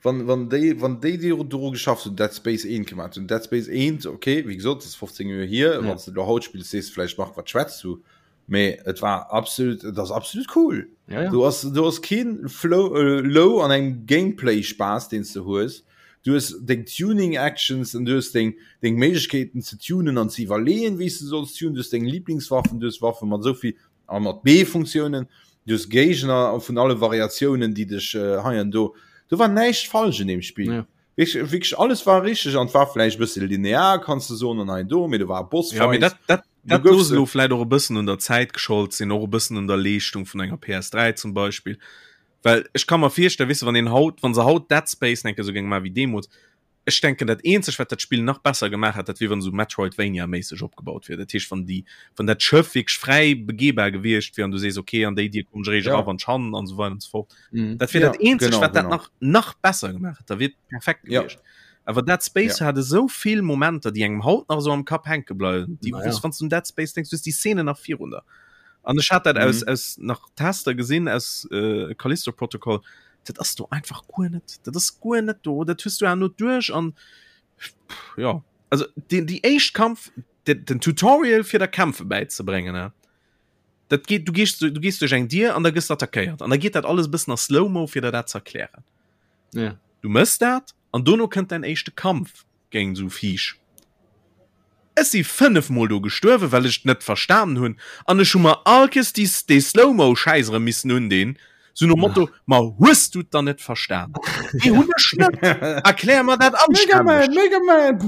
Wann, wann déi, wann déi, déi dru geschafft hunn, Dead Space 1 gemaach hunn, Dead Space 1, okay, wéi gesot, dat ass 15 Joer hier, ja. wann du lo haut spills, sees du vläicht, Marc, wat schwätz du? Mee et war absolut, et ass absolut cool. Ja, ja. Du has, du has keen Flow, äh, Low an engem Gameplay-Spaass, deen s du hues. Du hues deng Tuning-Actions an du hues deng, deng Méiglechkeeten ze tunen an ze iwwerleeën, wéi s du solls tunen. Du hues deng Lieblingswaffen, du hues Waffen mat esou vill a mat B-Funktiounen, du hues Géigner vun alle Variatiounen, déi dech hei an do. Do war näischt falsch un deem Spill. Ja. Wierklech, wierklech alles war richteg an et war vläicht e bësse linear, kanns de soen, an hei an do, mee do war e Bossfight. Ja, mee dat, dat, Du dat goufs looss elo vläicht och e bëssen un der Zäit geschollt sinn, och e bëssen un der Leeschtung vun enger PS3 zum Beispill. Well ech ka mer virstellen, weess de, wann een haut, wann se haut Dead Space enke sou géinge maachen wéi deemools, Ech denken dat eenzegt wat dat Spill nach besser gemaach hätt, dat wier wann esou Metroidvania-méisseg opgebaut wier. Dat heescht wann déi, wann dat Schëff wierklech fräi begehbar gewiescht wier an du sees okay an déi Dier kommen ech eréischt Ja. era wann ech han an esou weider an esou fort. Mhm. Dat wier Ja, dat eenzegt genau, wat dat genau. nach nach besser gemaach hätt, da wier et perfekt Ja. gewiescht. Awer Dead Space Ja. hat esou vill Momenter, déi engem haut nach esou am Kapp hänke bleiwen, déi Na wou's ja. wann s du un Dead Space denks, du hues déi Szenen nach virun der. An ech hat dat aus Mhm. aus nach Tester gesinn aus äh, Callisto Protocol, dat ass do einfach guer net dat ass guer net do dat hues du no duerch an ja also den die éischt Kampf den, den Tutorial fir der Kämpfe bäizebréngen ne dat geht du gehst du gehst duerch eng Dier an da gëss attackéiert an da geht dat alles bëssen a Slow-Mo fir der dat ze erklären ja. du mëss dat an dono kënnt dein éischte Kampf géint esou Viech. Ech si 5 mol do gestuerwen, well ech et net verstanen hunn, an ech hu mer all Kees déi dee Slow-Mo Schäiss erëm missen undinn. Sou nom Motto, ma hues du et dann net verstan? Nee, hunn ech net. Erklär mer dat Mega Man, Mega Man!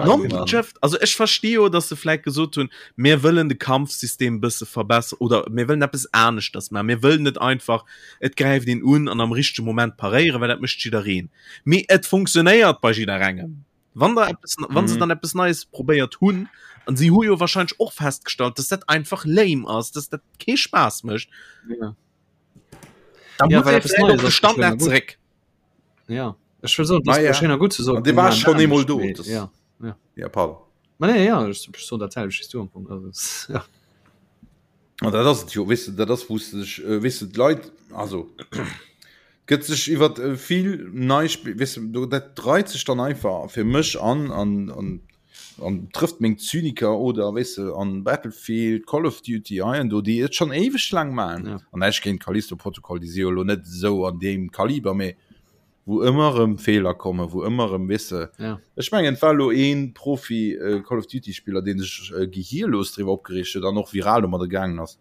Noncheft. Also ech versti jo, dass se vläit gesot hunn, mir wëllen de Kampfsystem bësse verbessern oder mir wëllen eppes aneschters maachen. Mir wëllen net einfach, et gräift een un an am richtege Moment paréieren, well dat mécht jiddereen. Mee et funktionéiert bei jidderengem. Wann der eppes, wann se mhm. dann eppes Neies probéiert hunn, an si hu jo wahrscheinlich och festgestallt, dass dat einfach lame ass, dass dat kee Spaß mécht. Ja. Da ja, muss ee vläicht op de Standard zeréck. Ja. Ech will so, das ah, ja. schön gut zu so. De war schon emol do. Das, ja. Ja. ja pardon. Ma nee, ja, ich, ich so dat selwecht du am Punkt. Also, ja. An dat ass et jo, weess de, dat ass wou s de dech, weess de, d'Leit, also gëtt sech iwwer vill nei Spill, weess de, do dat reit sech dann einfach fir mech an an an an trëfft meng Zyniker oder weess de an Battlefield, Call of Duty hei an do, déi et schonn éiweg laang maachen. Ja. An näischt géint Callisto Protocol, déi si jo elo net esou an deem Kaliber, mee wou ëmmer erëm Feeler kommen, wou ëmmer erëm, weess de, ja. ech mengen et war elo ee Profi äh, Call of Duty Spiller, deen sech äh, gehirlos driwwer opgereegt huet an och viral domadder gaangen ass,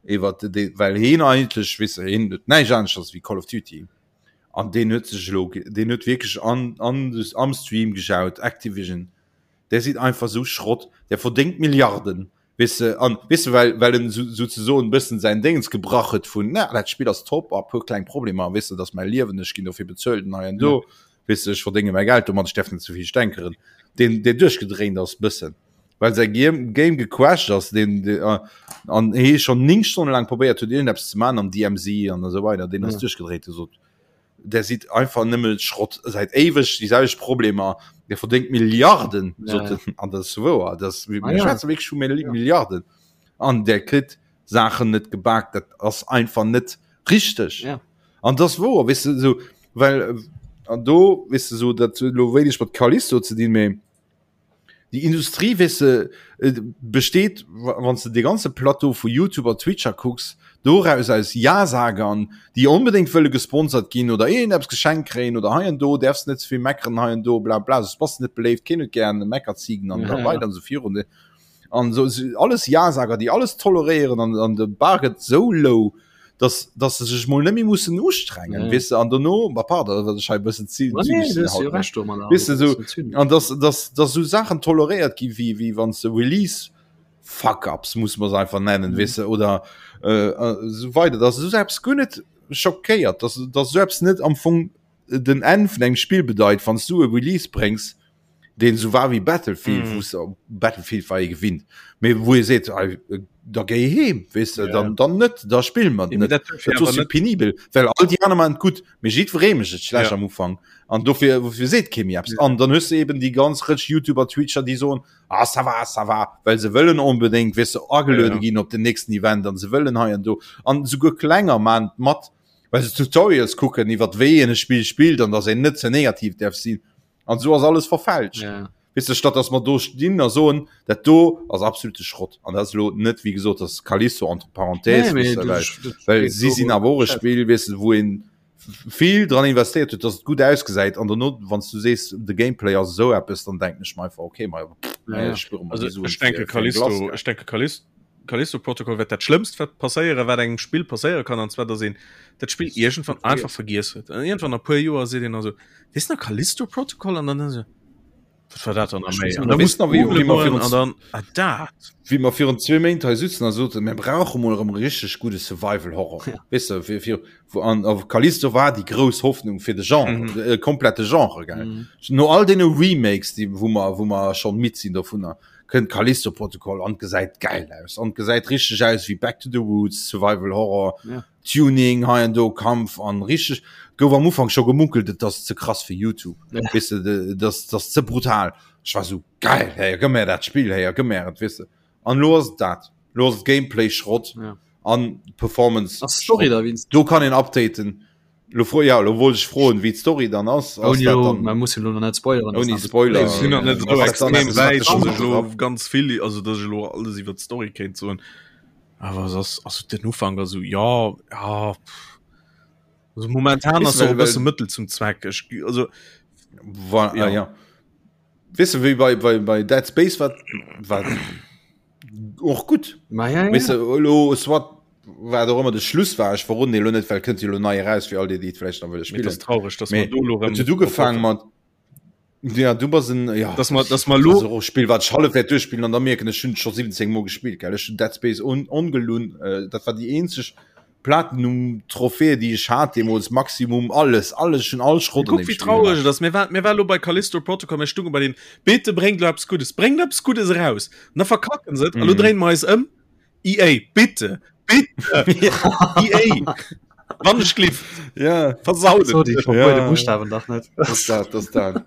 iwwer de, well heen eigentlech, weess de, heen huet näischt aneschters wéi Call of Duty an deen huet sech elo, deen huet wierklech an, an, am Stream gejaut, Activision, där sidd einfach sou Schrott, där verdéngt Milliarden, Weess de, an weess de, well, well en sou, souzesoen e bëssen säin Déngens gebrach huet vun, na, dat Spill ass top, a puer kleng Problemer, weess de, dat ass mäi Liewen, ech ginn dofir bezuelt an hei an do, weess de, ech verdénge mäi Geld domat, ech däerf net ze vill stänkeren, deen, deen duerchgedréint ass bëssen, well säi Game, Game gecrashed ass, deen, deen, an hee schonn 9 Stonne laang probéiert huet, iergendeppes ze maachen am DMZ an esou weider, deen ass duerchgedréint, huet gesot, Der sidd einfach nëmme Schrott säit éiweg déi selwecht Problemer der verdéngt Milliarden ja, ja. an das wouer das ah, ja. wierklech vu ja. Milliarden an der kritt Saachen net gebakt dat ass einfach net richteg ja. an das wouer wis du so well an do wis du so dat lo wéineg mat Callisto ze dinn méi Déi Industrie weess de besteet, wann s de dee ganze Plateau vu Youtuber, Twitcher kucks, doraus aus Ja-Sagern, déi onbedéngt wëlle gesponsert ginn oder iergendeppes geschenkt kréien oder hei an do däerfs net ze vill meckeren hei an do bla bla, soss bass de net beléift, keen huet gär Meckerzigen an esou weider an esou virun. An esou alles Ja-Sager, déi alles toleréieren an an de Bar gëtt esou low, dass dass se sech mol net méi mussen ustrengen ja. weess de an dono ma pardon wat ech hei bëssen zy Ma nee, du hues jo recht domadder. Weess de sou an dass dass dass sou Saachen toleréiert gi wéi wéi wann s de Release Fuck-ups muss mer se einfach nennen mm. weess de oder äh, äh, sou weider dass sou eppes guer net schockéiert dass dass sou eppes net am Fong den Enn vun engem Spill bedeit wann s du e Release bréngs deen esou war wéi Battlefield, mm. wou Battlefield war ee gewinnt, mee wou ee seet, da géi heem, weess de, ja. dann, dann net, da spill mer net. Dat ass jo penibel, well all déi aner maachen et gutt, mee jiddweree mécht et schlecht ja. am Ufank. An dofir, wofir seet kee méi eppes. Ja. An dann hues de eben déi ganz Rëtsch YouTuber, Twitcher, déi soen, ah, ça va, ça va, well se wëllen onbedéngt, weess de, ageluede ja. ginn op den nächsten Event an se wëllen hei an do. An souguer klenger maachen et mat, well se Tutorials kucken iwwer wéi een e Spill spillt an dass een net ze negativ däerf sinn. An esou ass alles verfälscht. Ja. Weess de, statt dass mer do stinn a soen, dat do ass absolute Schrott. An dat ass elo net, wéi gesot, dass Callisto entre parenthèses, Nee, weess mee de, du, well, dat well steet si do sinn awer och e Chat. Spill, weess de, wou een vill dran investéiert huet, dass et gutt ausgesäit. An dono, wann s du sees, de Gameplay ass esou eppes, dann denken ech mer einfach, okay, ma pff, Ja, ja. ech spuere mer Also déi Suen ech denke fir, fir eng Glace, Callisto, gell. ech denke Callisto, Callisto Protocol wäert dat Schlëmmst wat passéieren, wat engem Spill passéiere kann, an zwar dass een dat Spill iergendwann einfach vergiess huet. An iergendwann a puer Joer seet een also, weess nach Callisto Protocol an dann esou, wat war dat dann nach méi? An da muss Weess nach, wéi, googlen wéi mer goen virun an dann, ah dat. wéi mer virun zwee Méint hei sitzen a soten, mir brauche mol erëm e richteg gudde Survival Horror. Ja. Weess de, fir, fir, wou, an, a Callisto war déi grouss Hoffnung fir de Genre, Mhm. de äh, komplette Genre, gell. Mhm. No all deene Remakes, déi, wou mer, wou mer schonn midd sinn dovunner, kënnt Callisto Protocol an gesäit geil aus an gesäit richteg aus wéi Back to the Roots, Survival Horror, Ja. Tuning hei an do, Kampf an richteg. Gouf am Ufank scho gemunkelt, et ass ze krass fir YouTube. Ja. Weess de, de, das, das ze brutal. Ech war sou geil, hey, gëmm mir dat Spill, hey, gëmm mir et, weess de. An lo ass et dat. Lo ass et Gameplay Schrott Ja. an Performance. Ass d'Story da wéinst? Do kann een updaten. Lo fro, ja, lo wollt ech froen, wéi d'Story dann ass. Ass Ouni dat lo, dann man muss jo lo nach net spoileren. Ouni ass nach Spoiler. bis- Ech sinn nach net esou Ass dat dann extrem eppes, wäit, wat dass dech ech elo op- ganz vill, also dass ech elo alles iwwer d'Story kéint soen. Awer es ass, also den Ufank ass esou, ja, ja, pff. Also momentan Weess ass och well- e bësse well- Mëttel zum Zweck. Ech, also, Wa, Ja. ja. ja. Weess de, wéi bei, bei, bei Dead Space war, war och gutt. Ma ja, ja. Weess de, elo, soit. Wat och ëmmer de Schluss war, ech verroden dee lo net, well kënnt jo lo nei eraus fir all déi, déi et vläicht nach wëlle Mee et spillen. ass traureg, dass mer Mee do lo et rëm huet ugefaang mat, ja du bass en, ja, dass mer, dass mer dat lo ass och e Spill wat ech hallef wäert duerchspillen an da mierken ech hunn et scho 17 mol gespillt, gell. Ech hunn Dead Space on ongelunn, dat war déi eenzeg Platinum Trophäe déi ech hat deemools, Maximum, alles, alles, ech hunn all Schrott an Kuck deem wéi Spill traureg gemaach. et ass. Mir war, mir war lo bei Callisto Protocol, mir stunge bei den, bitte bréngt lo eppes Guddes, bréngt eppes Guddes eraus. An da verkacken se et a lo Mhm. dréine mer eis ëm. EA, bitte, bitte, EA, wann ech gliff, Ja. versaut So, et. déi verbuede Ja. Buchstaben dach net. Das dat, das dat.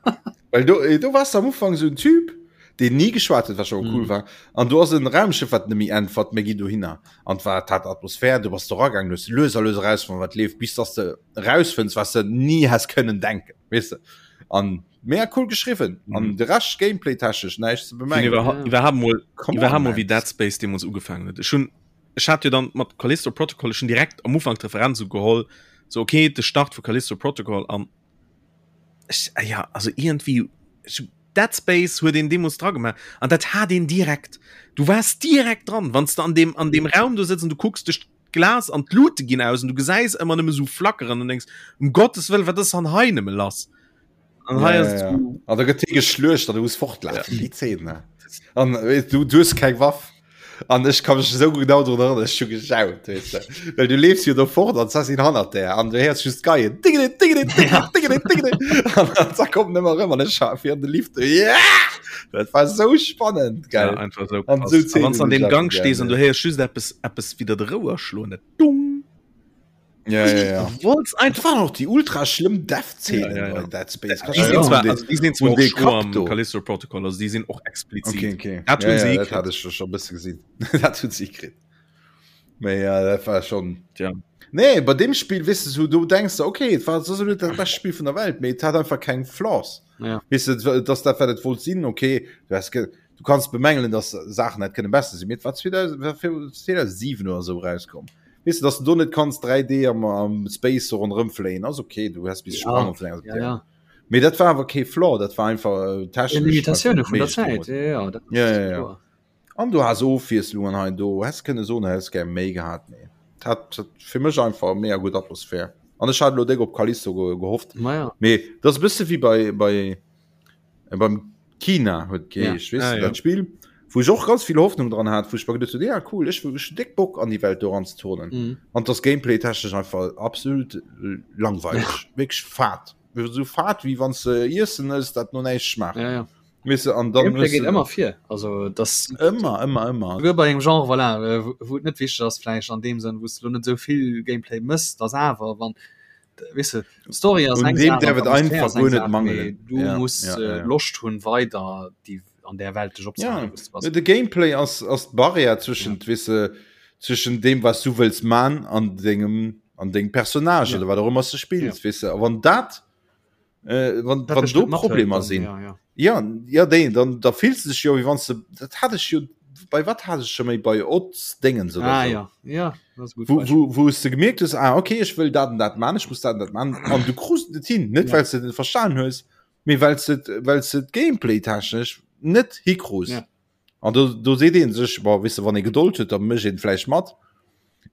Well do, eh, do warst du am Ufang so en Typ, deen nie geschwat huet, wat schon cool Mhm. war. An du ass en Raumschiff, wat nemmi äntwert, mir ginn dohinner. An war hat Atmosphär, du bass do ragaangen, du hues lues a lues erausfonnt, wat leeft, bis dass de rausfënns, was de nie häss kënnen denken, weess de. An mega cool geschriwwen. An Mhm. de Rescht gameplay-technesch näischt ze Finn bemängeln. iwwerha Ja. iwwerhaapt mol Come on, iwwerhaapt mol man. wéi Dead Space deemools ugefaangen huet. Ech hunn ech hat jo dann mat Callisto Protocol ech hunn direkt am Ufank d'Referenz ugeholl, so okay, de Start vu Callisto Protocol an ech ah ja, also iergendwéi ech hu Dead Space huet een deemools dra gemaach an dat hat een direkt. Du waars direkt dran, wann s de an deem an deem Raum do sëtz an du kucks duerch d'Glas an d'Lute ginn aus an du gesäis ëmmer nëmme sou flackeren an denkst, um Gottes Wëllen, wat ass dann hei nëmme lass? An hei Ja, ass ja, et ja. sou, An da gëtt hie geschluecht an du muss fortlafen. Déi Zeen, ne? An weess du, du hues keng Waff. An ech ka mech esou genau drun erënneren, ech hu gejaut, weess de. Well du leefs jo do fort an d'Sassin hannert där an du héiers just d'Geien. Dingedi, dingedi, dingedi, dingedi, dingedi. An dann zack kommt en ëmmer erëm an ech ha fir an de Lift. Yeah! Dat war sou spannend, ja, gell? einfach sou An krass. sou A Zeenen wann s an hunn deem ech Gang einfach stees gär, an du ne? héiers just eppes, eppes widder de Rouer schloen, dat Dung. Ja, ja, ja. Du wollts Dat einfach. waren och déi ultra schlëmm Death-Zeenen Ja, ja, ja. bei Dead Space. Kannst Déi du sinn dich zwar, erinnern, also déi sinn zwar un och dee schro Kapp am do? Callisto Protocol, also déi sinn och explizit. Okay, okay. Dat Ja, hunn se ja, dat hikritt. hat ech schon e bësse gesinn. Dat hunn se hikritt. Mee ja, dat war schon. Tja. Nee, bei dem Spiel, weess de, so, du denkst de, okay, et war so net dat bescht Spiel vun der Welt, mee et hat einfach keng Flaws. Ja. Weess de, dass dat wat et wollt sinn, okay, du has ge du kanns bemängelen, dass Saachen hätt kënne besser sinn, mee et war 2000, war 2007 oder sou erauskomm. Weess de, dass du do net kanns 3D am, am Space so ronderëm fléien, ass okay, du häss bis Ja, sprangen vun enger ja, ja. Mee dat war awer kee Flaw, dat war einfach äh, Ja, technesch Limitatioune vun der méiglech Zäit, deemools. ja, ja, dat Ja, ass ja, ja. kloer. An du has Ofwiesslungen hei an do, häss kënne soen, häss gär méi gehat, mee et hat, hat fir mech einfach mega gutt Atmosphär. An ech hat elo déck op Callisto ge gehofft. Ma ja. Mee dat ass e bësse wéi bei, bei äh, beim Kina huet geheescht, weess Ah, de, ja. dat Spill, wou ech och ganz vill Hoffnung dran hat, wou ech mer geduecht hunn, ja cool, ech hu ech hunn déck Bock an déi Welt do eranzeturnen. Mhm. An dass Gameplay-technesch einfach absolut langweileg, wierklech fad. Esou fad, wéi wann s de Iessen ëss, dat no näischt schmaacht. Ja, ja. Weess de, an dann Gameplay hues geet de ëmmer vir, also das ëmmer, ëmmer, ëmmer. Souguer bei engem Genre, voilà, äh, wou wou et net wichteg ass vläicht an deem Sënn, wou s de lo net esou vill Gameplay mëss, dass awer wann weess de, d'Story ass Un eng deem Saach an däerf et d'Atmosphär einfach ass eng guer net Saach, mee mangelen. du Ja, muss ja, äh, ja, ja. Loscht hunn weider déi an där Welt dech Ja, opzehalen, wou s de bass. de Gameplay ass ass d'Barrière zwëschent, weess de, zwëschen deem wat s du wëlls man an dengem an dengem Personnage Ja. oder wat och ëmmer s de spills, Ja. weess de. A wann dat äh, wann, Dat wann dech do net mathëlt, Problemer dann, sinn, ja, ja. ja, ja déi, dann da fills du dech jo wéi wann s de, dat hat ech jo, bei wat hat ech scho méi, bei Odds Déngens oder Ah sou. ja, ja, dat ass e gutt Wou, Beispill. wou, wou s de gemierkt hues, ah okay, ech wëll dat an dat man, ech muss dat an dat man, an du krus et net hin, net Ja. well s de et net verstan hues, mee well s de, well s de d'Gameplay-technesch net hikrus. Ja. An do, do seet een sech, bon, weess de, wann ee Gedold huet, da mécht een vläicht mat.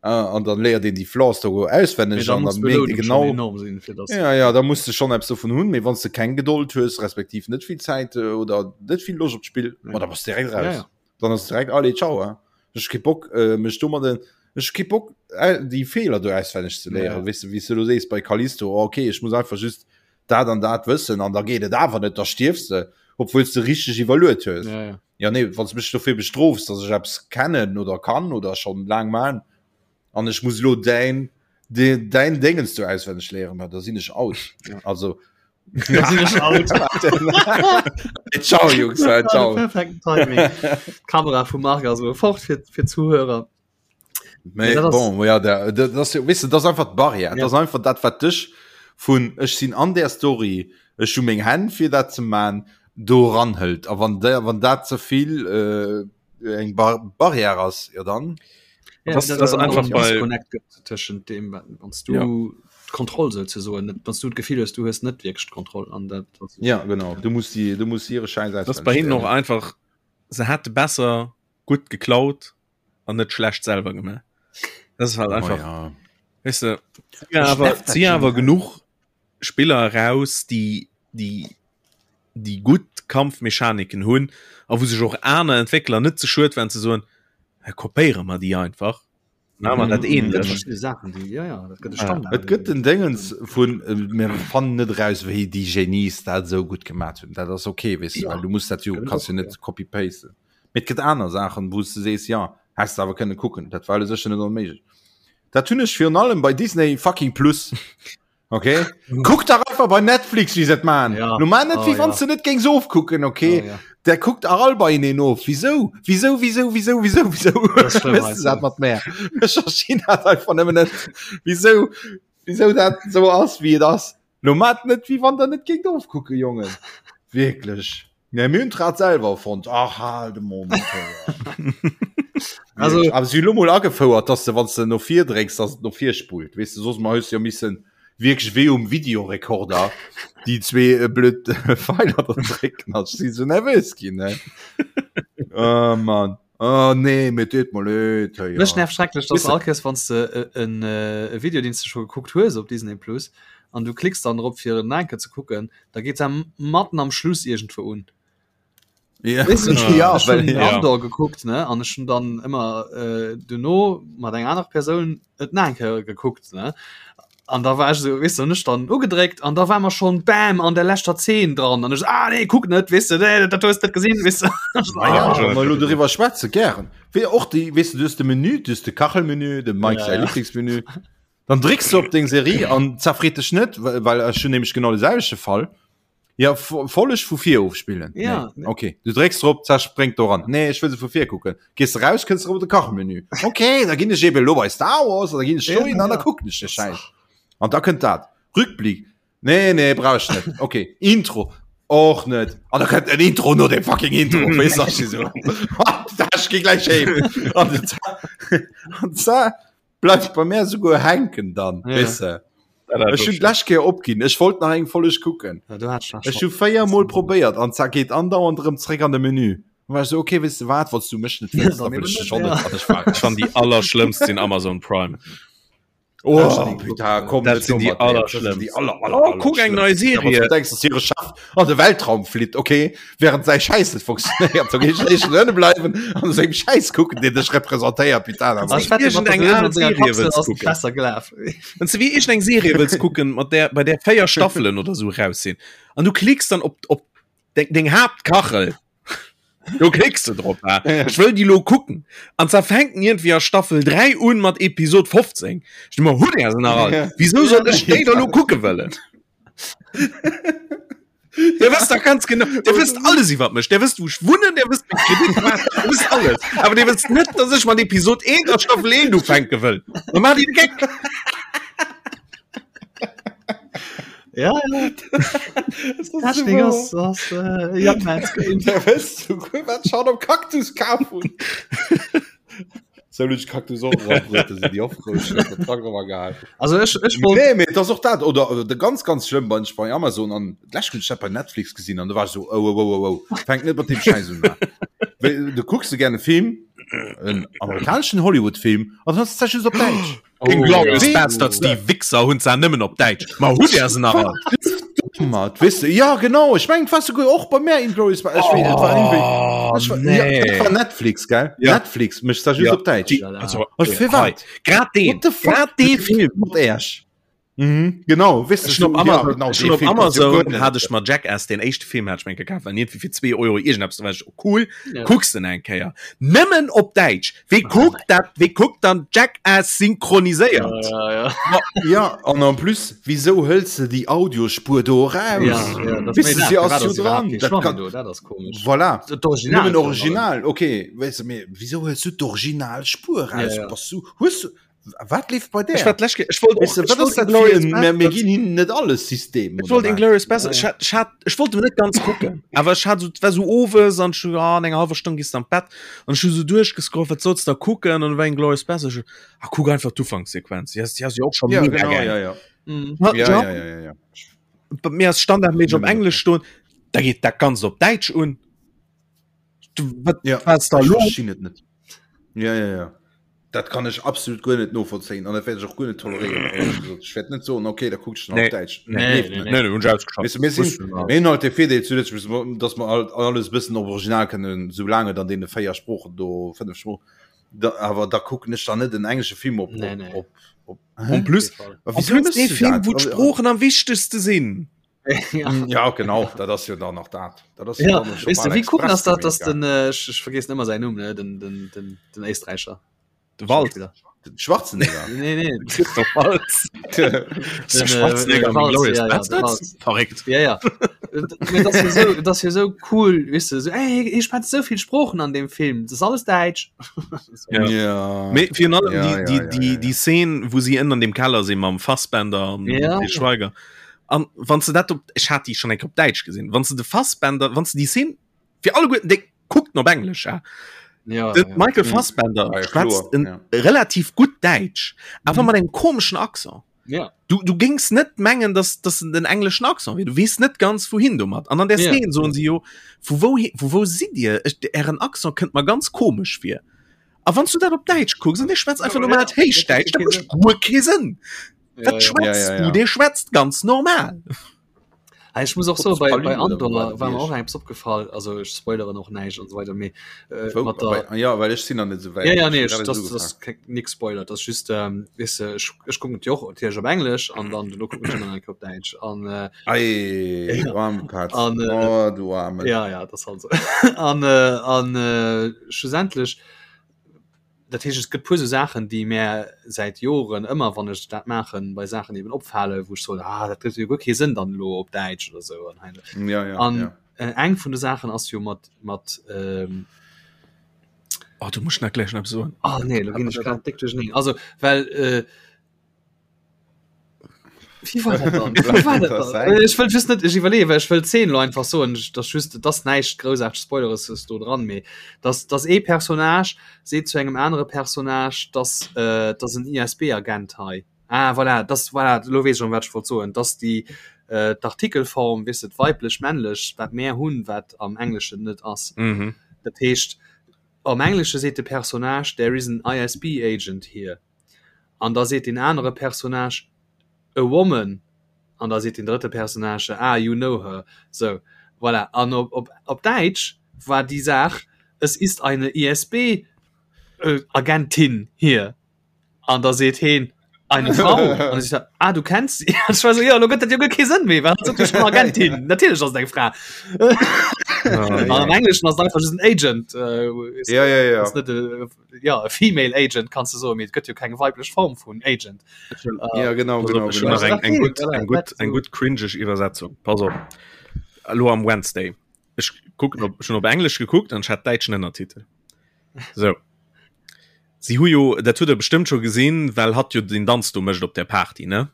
Äh, an dann léiert een déi Flaws do auswenneg Mee da an muss dann mierkt ee d'Belounung schon genau, enorm sinn, fir dass ja, ja, da muss de schon eppes dovun hunn, mee wann s de keng Gedold hues, respektiv net vill Zäit äh, oder net vill Loscht op d'Spill, Ja. ma da bass de direkt Ja, raus. ja. Dann ass direkt allez, ciao, hein. Ech hu kee Bock, äh, mech domadden, ech hu kee Bock, äh, déi Feeler do auswenneg ze léieren. Ja. Weess de, wéi s de lo sees bei Callisto, oh, okay, ech muss einfach just dat an dat wëssen an da geet et awer net, da stierfs de, obwuel s de richteg iwwerluet hues. Ja, ja. Ja nee, wann s mech dofir bestrofs, dass ech eppes kennen oder kann oder schon laang man an ech muss lo däin de, däin Déngens do auswenneg léieren, ma da sinn ech out. Ja. Also Da sinn ech out. ciao Jungs, äh, ciao. Perfekten Timing. D'Kamera vum Marc ass elo fort fir, fir d'Zuhörer. Mee Ja, dat ass- bon, ja, der, dat ass, weess de, dat ass einfach d'Barrière. Ja. Dat ass einfach dat, wat dech vun ech sinn an der Story, ech hu meng Hänn fir dat ze man, do ranhëlt. A wann der, wann dat ze vill äh, eng Bar Barrière ass, ja dann. Ja, Das- das ist einfach en bei- Disconnect gëtt tëschent dem, wann du Ja. d'Kontroll souzesoen net, wann du d'Gefill hues, du hues net wierklech d'Kontroll an dat ass- Ja, genau. Du musst die, du musst hire Scheiß Das ist bei hinnen och einfach se hätte besser gutt geklaut an net schlecht selwer gemaach. Das ist halt einfach. Oh, ja. Weißt du, ja, aber, sie awer genug Spiller raus, déi déi déi gutt Kampfmechaniken hunn a wou sech och aner Entwéckler net ze schued waren ze soen, kopéiere mer déi einfach. Na, man dat ähnlech. Sachen, die, ja, ja, dat gëtt e Standard. Et gëtt den Déngens vun äh, mir fannen net raus, wéi déi Genies dat esou gutt gemaat hunn. Dat ass okay, weess du, ja. well du muss dat jo kannst jo net copy-pasten. Mee et gëtt aner Saachen, wou s du sees, ja, häss du awer kënne kucken. Dat war sécher net onméiglech. Dat hunn ech virun allem bei Disney fucking Plus. Okay Kuck dach einfach bei Netflix wie se man ja. Du man net oh, wie wann ja. du net géings ofkucken okay oh, ja. Der kuckt auch all bei ihnen of wieso wieso wieso wieso wieso wieso dat mat mehr hat einfach nëmmen net wieso wieso dat so ass wie et ass Lo mat net wie wann der net géingt ofkucke Jongen wirklich Ne mir hunn d'Rad selwer erfonnt. Ach hal de Mond. Also awer si hu lo mol agefouert, dass de wann s de no vir drécks, dass et no vir spullt. Weess de, soss mol hues de jo missen wierklech wéi um Videorekorder déi zwee äh, blöd Pfeiler da drécken. Ech si sou nervös ginn, ne? Oh Mann. Oh nee, mir deet mer leed. Hey, Mech ja. nervt schrecklech, dass Weess de- all Kéiers wann s de e, en, äh, e Video, deen s de scho gekuckt hues op Disney Plus, an du klicks dann drop fir en enke ze kucken, da geet se matten am Schluss irgendwo un. Ja, Weißt du, ich, ja, ich well, hun ja. Andor gekuckt ne an ech hun dann ëmmer äh, duerno mat enger aner Persoun et nach eng Kéier gekuckt ne an da war ech so weißt du, hun ech dann ugedréckt an da war mer schon bam an der leschter Zeen dran an ech so, ah nee kuck net weißt du, nee, dat hues net gesinn weißt du. Ah, ja, ja. wa mer elo doriwwer schwätze gären. Wéi och déi, weess du, du hues de Menü, du hues de Kachelmenü, dem Mike Ja, säi ja. Lieblingsmenü. Dann drécks du op deng Serie an zerfreet dech net, well ech hunn nämlech genau de selwechte Fall. Ja, Folleg vu vir ofspillen. Ja. Nee. Okay. Du drécks drop, zack spréngt do ran. Nee, ech wëll se vu vir kucken. Gees de raus, kënns erëm op de Kachmenü. Okay, da ginn ech eben elo bei Star Wars an da ginn ech dohin an da kucken ech de Schäiss. An da kënnt dat. Rückblick. Nee, nee, brauch ech net. Okay. Intro. Och net. An da kënnt en Intro no dem fucking Intro. Weess du, ech si sou, Ech gi gläich heem. An an za Bleift bei mär souguer hänken dann, Ja. weess de. Ech hunn d'lescht Kéier opginn. Ech wollt nach eng Folleg kucken. Ja, du hattest nach Ech hu 4 Mol probéiert an zack geet andauernd erëm zréck an de Menü. Dann war ech sou, okay, weess de wat, wann s du mech net wëlls, Dann da wëll eben ech dech net, och net. ja. An ech war Ech fannen déi allerschlëmmst sinn Amazon Prime. Oh, putain, komm, Dat sinn déi allerschlëmmst. aller, aller, Oh, kuck eng nei Serie. Du denkst, dass hire Chef an de Weltraum flitt, okay, während säi Schäiss net funktionéiert, da géif ech éischter ënne bleiwen an sengem Schäiss kucken, deen dech representéiert, putain. Ah, ech wette, mat Iergendeng der al senger Serie Kapsel wëlls ass kucken. besser gelaf. Wann du wéi iergendeng Serie wëlls kucken, mat där, bei där 4 Staffelen oder sou raus sinn, an du klicks dann op, op deng, deng Haaptkachel, do klicks du drop, ha? Ech wëll déi lo kucken. An zwar fänkt en iergendwéi a Staffel 3 un mat Episod 15. Ech denk mer, hutt Är se nach all? Wisou soll ech déi da lo kucke wëllen? Der wësst doch ganz genau, der wësst alles iwwer mech, der wësst wou ech wunnen, der wësst meng Kreditkaart, der wësst alles. Awer der wësst net, dass ech mat Episod 1 a Staffel 1 ufänke wëll. Da maacht Dir de Geck. Ja, ja. Technik ass, ass äh, Young Man's Game. Der wësst souguer, wat ech haut am Cactus kaf hunn. Sou hunn ech Cactus och erabrëtt, si déi ofgerutscht, huet den Trak awer gehal. Also ech, ech wollt. Nee, mee et ass och dat, oder äh, de ganz, ganz schlëmm bei, bei Amazon an d'lescht hunn ech dat bei Netflix gesinn an do war ech sou, oh, oh, oh, oh, oh, fänk net mat deem Schäiss un. Wéi, du kucks de gär e Film, en amerikaneschen Hollywood-Film, an dann ass et just op Däitsch. Oh, Inglourious ja. Basterds, déi Wichser hunn se nëmmen op Däitsch. Ma hutt Är se nach all? Mat, weißt du, ja genau, ich mein, was sogar och bei mir Inglourious Basterds, ich weiß, war irgendwie, Oh, ich war, ja, nee. dat war Netflix, gell? Ja. Netflix, mech da just Ja. op Däitsch. Die, also, Was fir wat? Grad deen, What the fuck? grad dee Film. Mat Äerch. Mhm, genau, weißt du, Ech hun op so, ja, Amazon, genau, ech dee hun op Film passt jo Amazon guer net. hat ech mer Jackass, den éischte Film hat ech mir gekaf, well iergendwéi fir 2 Euro iergendeppes, da war ech, oh cool, Ja. kucks den eng Kéier. Nëmmen op Däitsch. Wee kuckt dat, wee kuckt dann Jackass synchroniséiert? Ja, ja, ja. Ja, an en plus, wieso hëls de déi Audiospur do eraus? Ja, ja, das Weißt du, sie ass jo jo dran. Dat kann- do, dat ass komisch. Voilà. Dat Original. Nëmmen Original, okay. Weißt du, mee, wieso hëls du d'Originalspur raus? Ja, ja. Bass du, hues du, wat leeft bei Ech där? war d'lescht Kéier, ech wollt och, Weißt du, ech wat wollt ass dat fir Inglourious en, mir, mir Basterds, ginn hinnen net alles System, ech oder wollt wat? Inglourious Basterds, ech hat, ech hat, ech wollt net ganz kucken, awer ech hat so, et war so owes an ech so, ah, an enger halwer Stonn gees du an d'Bett an ech hu so duerchgescrollt, wat solls da kucken an dann war Inglourious Basterds, ech so, ah, kuck einfach d'Ufankssequenz, déi ass, déi ass jo och scho Ja, mega genau, geil. ja, ja. Mhm. Ja, Ja, ja. ja, ja, ja, ja. Bei mir ass standardméisseg op Nëmmen op Englesch stoen, da geet dat Ganzt op Däitsch un. Du, wat, Ja, was da ech los? verstinn et net. Ja, ja, ja. Dat kann ech absolut guer net novollzéien an dat wäert ech och guer net toleréieren, éierlech gesot. Ech wäert net soen, okay, da kuckt ech en op Däitsch. Nee, nee, nee, nee, hunn ech ausgeschalt. Weess de, mir sinn, mir hunn halt de Virdeel zu Lëtzebuerg, dass mer alt alles e bëssen op Original kënnen, soulaang et an deene 4 Sproochen do, 5 Sproochen, da, awer da kucken ech dann net en englesche Film op, Nee, nee. op, op, En plus, op, en plus dee Film, wou d'Sproochen am wichtegste sinn. ja. Ja, genau, dat ass jo dann nach dat. Dat ass Ja, dann schon weißt du, bal wie cool express ass dat, dass gemeet, den, äh, ich, ich vergessen immer seinen Numm, ne? den, den, den, den Éisträicher. De Wald. Schauspieler. gell? Den Schwarzenegger. Nee, nee. Christoph Waltz. Den, äh, Schwarzenegger äh, mit Waltz, Glorious ja, ja, de Bastards? Waltz. Verréckt. Ja, ja. Äh, Dat ass jo so, dat ass jo so cool, weißt du, so, ey, ich schwätze so viel Sprochen an dem Film, das ist alles Deutsch. Ja. Ja. Mee virun allem Ja, déi, ja, déi, ja, déi, ja, ja. déi Szene, wou si ënner dem Keller sinn mam Fassbender an Ja. dem Schweiger. An wann du dat op, ech hat déi schon eng op Däitsch gesinn, wann du de Fassbender, wann du déi Szene fir alleguerten déi kuckt op Englesch ja. Ja, Den ja. Michael Fassbender Ja, schwätzt kloer, en ja. relativ gutt Däitsch, awer mat engem komeschen Accent. Ja. Du, du gings net mengen, dass dass en den engleschen Accent wier. Du weess net ganz wouhin domat. An an der Ja. Szene soen si jo, vu wou, vu wou sidd Dir? Ech, ären Accent kënnt mer ganz komesch vir. A wann du dat op Däitsch kucks an dee schwätzt einfach normalt Héichdäitsch, dat mécht guer kee Sënn. Ja, Wat ja. schwätzt Ja, ja, du? ja. Dee schwätzt ganz normal. Ah, ich muss och so bei, Trotz bei Palü oder Andor wo war mir war och eppes opgefall, also ich spoilere noch näischt und so weiter, mee äh, Wou, mat der bei, ja, well ech sinn nach net esou wäit. Ja, ja, nee, Ech ich, hun das, grad das esou ist nix Spoiler, das ist just, ähm, weißt du, ich, ich gucken die och natürlich op Englisch an dann du gucken ich immer noch op Deutsch an äh, Ei, du arme Katz. An, äh, oh, du arme. ja ja das halt so an äh, an äh, schlussendlich dat heescht es gëtt puer sou Saachen déi mär säit Joren ëmmer wann ech dat maachen bei Saachen eben opfalen wou ech soen ah dat gëtt jo guer kee Sënn dann elo op Däitsch oder sou an hei Ja, ja, an ja. äh, eng vun de Saachen ass jo mat mat ähm, Oh, du musst nach gleich noch soen. ah nee lo ginn ech grad déck duercherneen also well äh, Wie war dat dann? Wie war dat dann? Äh, Ech wëll just net ech iwwerleeën, well ech wëll d'Zeen lo einfach soen, dass just dass näischt groussaarteg Spoileres ass do dran, mee dass dass ee Personnage seet zu engem anere Personnage, dass äh, dass en ISB-Agent hei. Ah voilà, das voilà, lo weess ech erëm wat ech wollt soen, dass déi äh, d'Artikelform, weess de, weiblech, männlech, wat mär hunn, wat am Engleschen net ass. Mhm. Dat heescht am Englesche seet de Personnage there is an ISB agent here. An da seet deen anere Personnage, A woman. An da seet deen drëtte Personnage, Ah, you know her. Sou, voilà. An op, op, op Däitsch war déi Saach, Es ist eine ISB-Agentin hier. An da seet heen, Eine Frau. An da seet er, Ah, du kennst sie. An ech war sou, Jo, elo gëtt dat jo guer kee Sënn méi, well hatt sot jo schonn Agentin. Natierlech ass et eng Fra. An am Engleschen ass et einfach just en Agent. Äh, Ja, ja, ja. Ass net e ja e female agent kannst du so mit gëtt jo keng weiblech Form vun Agent äh, ja genau, genau, schon genau. nach eng, eng gut eng gut eng so. gut cringeg Iwwersetzung pass op Hallo am Wednesday ich gucken op schon op Englisch geguckt an hat deitschen Ënnertitel so sie hu jo dat huet er bestimmt schon gesehen well hat jo den Danz du mecht op der Party ne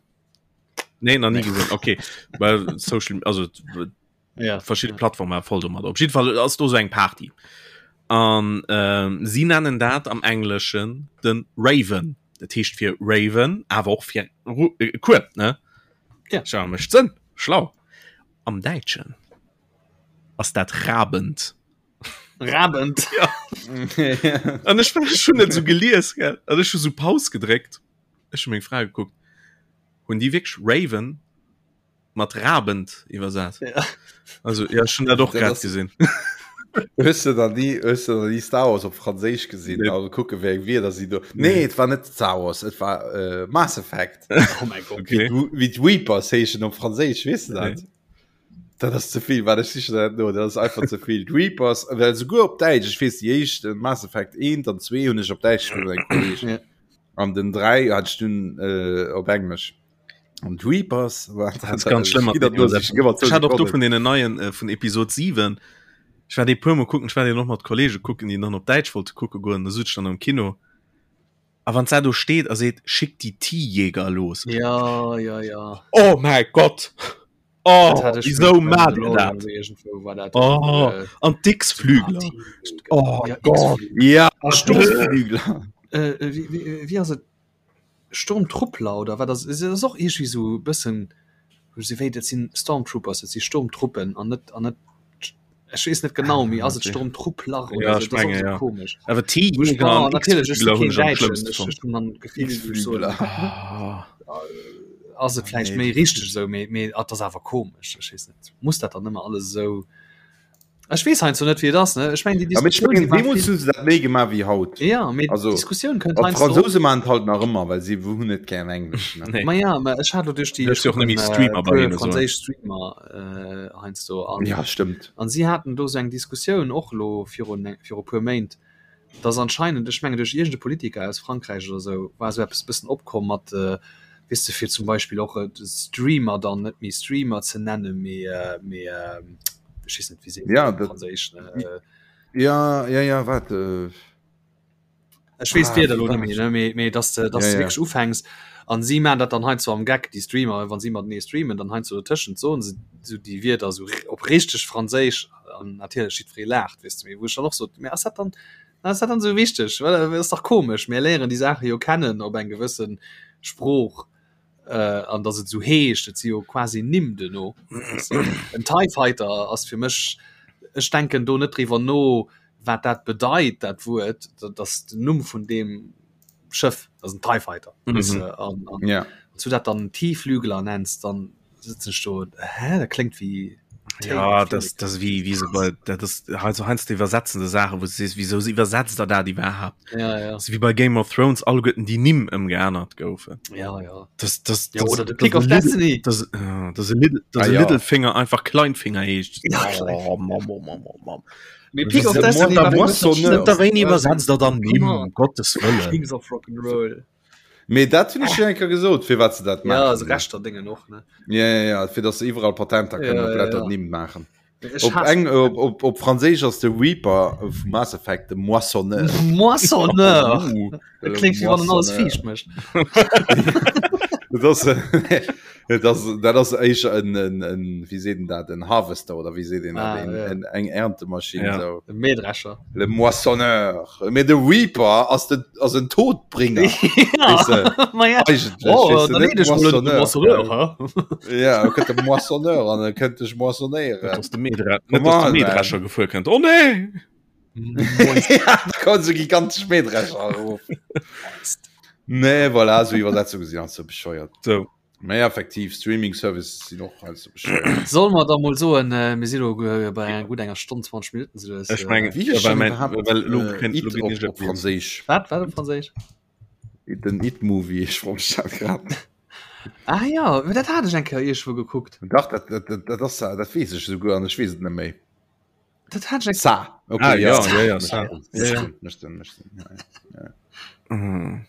nee nach nie gesehen okay well social also ja. verschiedene Plattformen voll domat. Op jeden Fall ass do so eng Party. An ähm, sie nennen dat am Engleschen den Raven. Dat heescht fir Raven, awer och fir äh, Kueb, ne? Ja. Schau, mécht Sënn. Schlau. Am Däitschen ass dat Rabend. Rabend. Ja. An ech war schon net so gelies, gell? An ech hu so Paus gedréckt. Ech hu meng Fra gekuckt. Hunn déi wierklech Raven mat Rabend iwwersat. Ja. Also ja schon dat och Dat grad ass- gesinn. Hues du dann nie hues du dann nie Star Wars op Franséisch gesinn Nee. also kucke wéi eng Wierder si do Nee et war net Star Wars et war äh, Mass Effect Oh mein Gott. Okay. Wéi wéi d'Reapers heeschen op Franséisch weess du dat Nee. Dat ass ze vill wat ech sichen dat no dat ass einfach ze vill d'Reapers well souguer op Däitsch ech weess déi éischt äh, Mass Effect 1 an 2 hunn ech op Däitsch gespillt mat engem Kolleg Ja. an den 3 hat ech dunn äh, op Englesch An Reapers war Das ist ganz schlimm. Ich hatte och do vun den neien äh, vun Episode 7. Ich war déi puer Mol kucken, ich war déi noch mat Kollege kucken, déi dann op Däitsch wollte kucke goen, da sutz ich dann am Kino. A wann da do steet a seet schick die T-Jäger los. Ja, ja, ja. Oh mein Gott! Oh, Dat hat ich wieso mit macht ihr Mandalorian dat? irgendwo war dat. Oh, Äh, an d'X-Flügler. Oh Ja, Gott. Ja, Sturmflügler. Äh, äh, wie, wie, wie ass et? Sturmtruppler oder wat ass et ass och iergendwéi sou e bëssen wou se wéi dat sinn Stormtroopers, dat si Sturmtruppen an net an net. Ech weess net genau, mee ass et Sturmtruppler oder ja, so? Menge, ja. Komisch. Awer T ah, natierlech ech si keen Däitschen, ech ech hunn dann d'Gefill, wou ech soen, ah. ass et vläicht méi richteg esou, mee mee et ass awer komesch, ech weess net. Muss dat dann ëmmer alles esou Ech weess heiansdo net, wéi et ass, ne? Ech mengen, déi Ja, mee ech Diskussioun, mengen, déi war deemools vill hu se dat méi gemaach wéi haut. Ja, mee Also, d'Diskussioun kënnt an heiansdo d'Fransouse maachen et halt nach ëmmer, well si hunn net gären Englesch, ne? Nee. Ma ja, mä ech hat elo duerch déi, Duerch ech si och net kucken méi Streamer e bei puer hinne soen. franséisch Streamer äh, heiansdo an Ja, stëmmt. an si haten do esou eng Diskussioun och elo virun viru puer Méint, dass anscheinend, ech mengen duerch iergend e Politiker aus Frankräich oder esou, war esou eppes e bëssen opkomm mat, weess de, fir zum Beispill och Streamer dann net méi Streamer ze nennen, mee mee ech weess net, wéi seet een Ja, dat op dat, Franséisch, ne? ja, ja, ja, waart. Ech weess Ah, d'Wierder wéi elo war net méi, dat? ne, mee mee dass de dass Ja, de ja. wierklech ufänks an si maachen dat dann heiansdo am Geck, déi Streamer, wa si matenee streamen, dann heiansdo dotëschent soen se esou déi Wierder esou op richteg Franséisch an natierlech jiddweree laacht, weess de, mee wou ech dann och sot, mee ass dat dann ass dat dann esou wichteg? Well ass dach komesch, mir léieren déi Saache jo kennen op eng gewësse Sprooch an dass et esou heescht, et si jo quasi Nimm duerno, weess de. En TIE Fighter ass fir mech, ech denken do net driwwer no, wat dat bedeit dat Wuert, dat ass den Numm vun deem Schëff, dat ass en TIE Fighter mm -hmm. an, an, ja. zu dat dann Tieflügler nennst, dann sitzen ech do hä dat kléngt wéi ja das das wie wie so bei dat das also heiansdo iwwersetzende Sache wo du wieso sie iwwersetzt der da die überhaupt ja, ja. so wie bei Game of Thrones alleguerten die Nimm ëmgeännert goufen ja ja das das, ja, das, oder de das, Pick of Little, Destiny das, äh, das, Little, das ah, ja. Littlefinger einfach Kleinfinger heescht ja, oh, Mam, Mam, Mam, Mam. Mee Pick of Destiny war Moissonneur. Da wéini iwwersetzt der dann Nimm, um Gottes Wëllen. Kings of Rock'n'Roll. Mee dat hunn ech jo eng Kéier gesot, firwat se dat Ja, maachen. also Rechter Dingen och, ne? Ja, ja, ja, fir datt se iwwerall Patenter kënnen Ja, op ja, Letter ja. Nimm maachen. Ech Op hasse eng, op, op, op Franséisch ass de Reaper vu Mass Effect de Moissonneur. Moissonneur! Uh, Dat kléngt wéi wann en alles Moissonneur. fiicht mécht. Dat ass, dat ass, dat ass éischer en, en, en, wéi seet en dat, en Harvester oder wéi seet een dat, Ah, en, ja. en, eng Erntemaschinn, Ja. sou. E Mähdrescher. Le Moissonneur. Mee de Reaper ass de, ass en Todbringer. Weess de, Ma ja. eigentlech, Oh, weess de, dann net leet ech mol un de Moissonneur, Moissonneur, gell? hä? Ja, e kënnt de Moissonneur an e kënnt dech moissonnéieren. Dass de Mähdre- Come net, dass de on, man. Mähdrescher gefuer kënnt. Oh nee! ja, da kommen so gigantesch Mähdrescher erof. Nee, voilà, so Iwwersetzungen sinn halt so bescheuert. So. Mee effektiv, Streaming-Services sinn och halt so bescheuert. Soll mer da mol soen, äh, mir si lo äh, bei enger gutt enger Stonn 20 Minuten sou dass, Ech äh, mengen, Wie heescht well denn mein, überhaupt well lo äh, kennt, lo It ginn op, ech op Franséisch? Wat, wat op Franséisch? Den It-Movie, ech froe mech dat grad. Ah ja, dat hat ech eng Kéier iergendwou gekuckt. Dach, dat, dat, dat, dat ass, dat weess ech souguer an ech weess et net méi. Dat hat ech Sa. Okay, Ah, ja, ja, ja, ja, Mécht Sa. Sinn, Ja, mécht ja. Sinn, mécht Sinn, mécht Sinn, ja, ja. Mhm.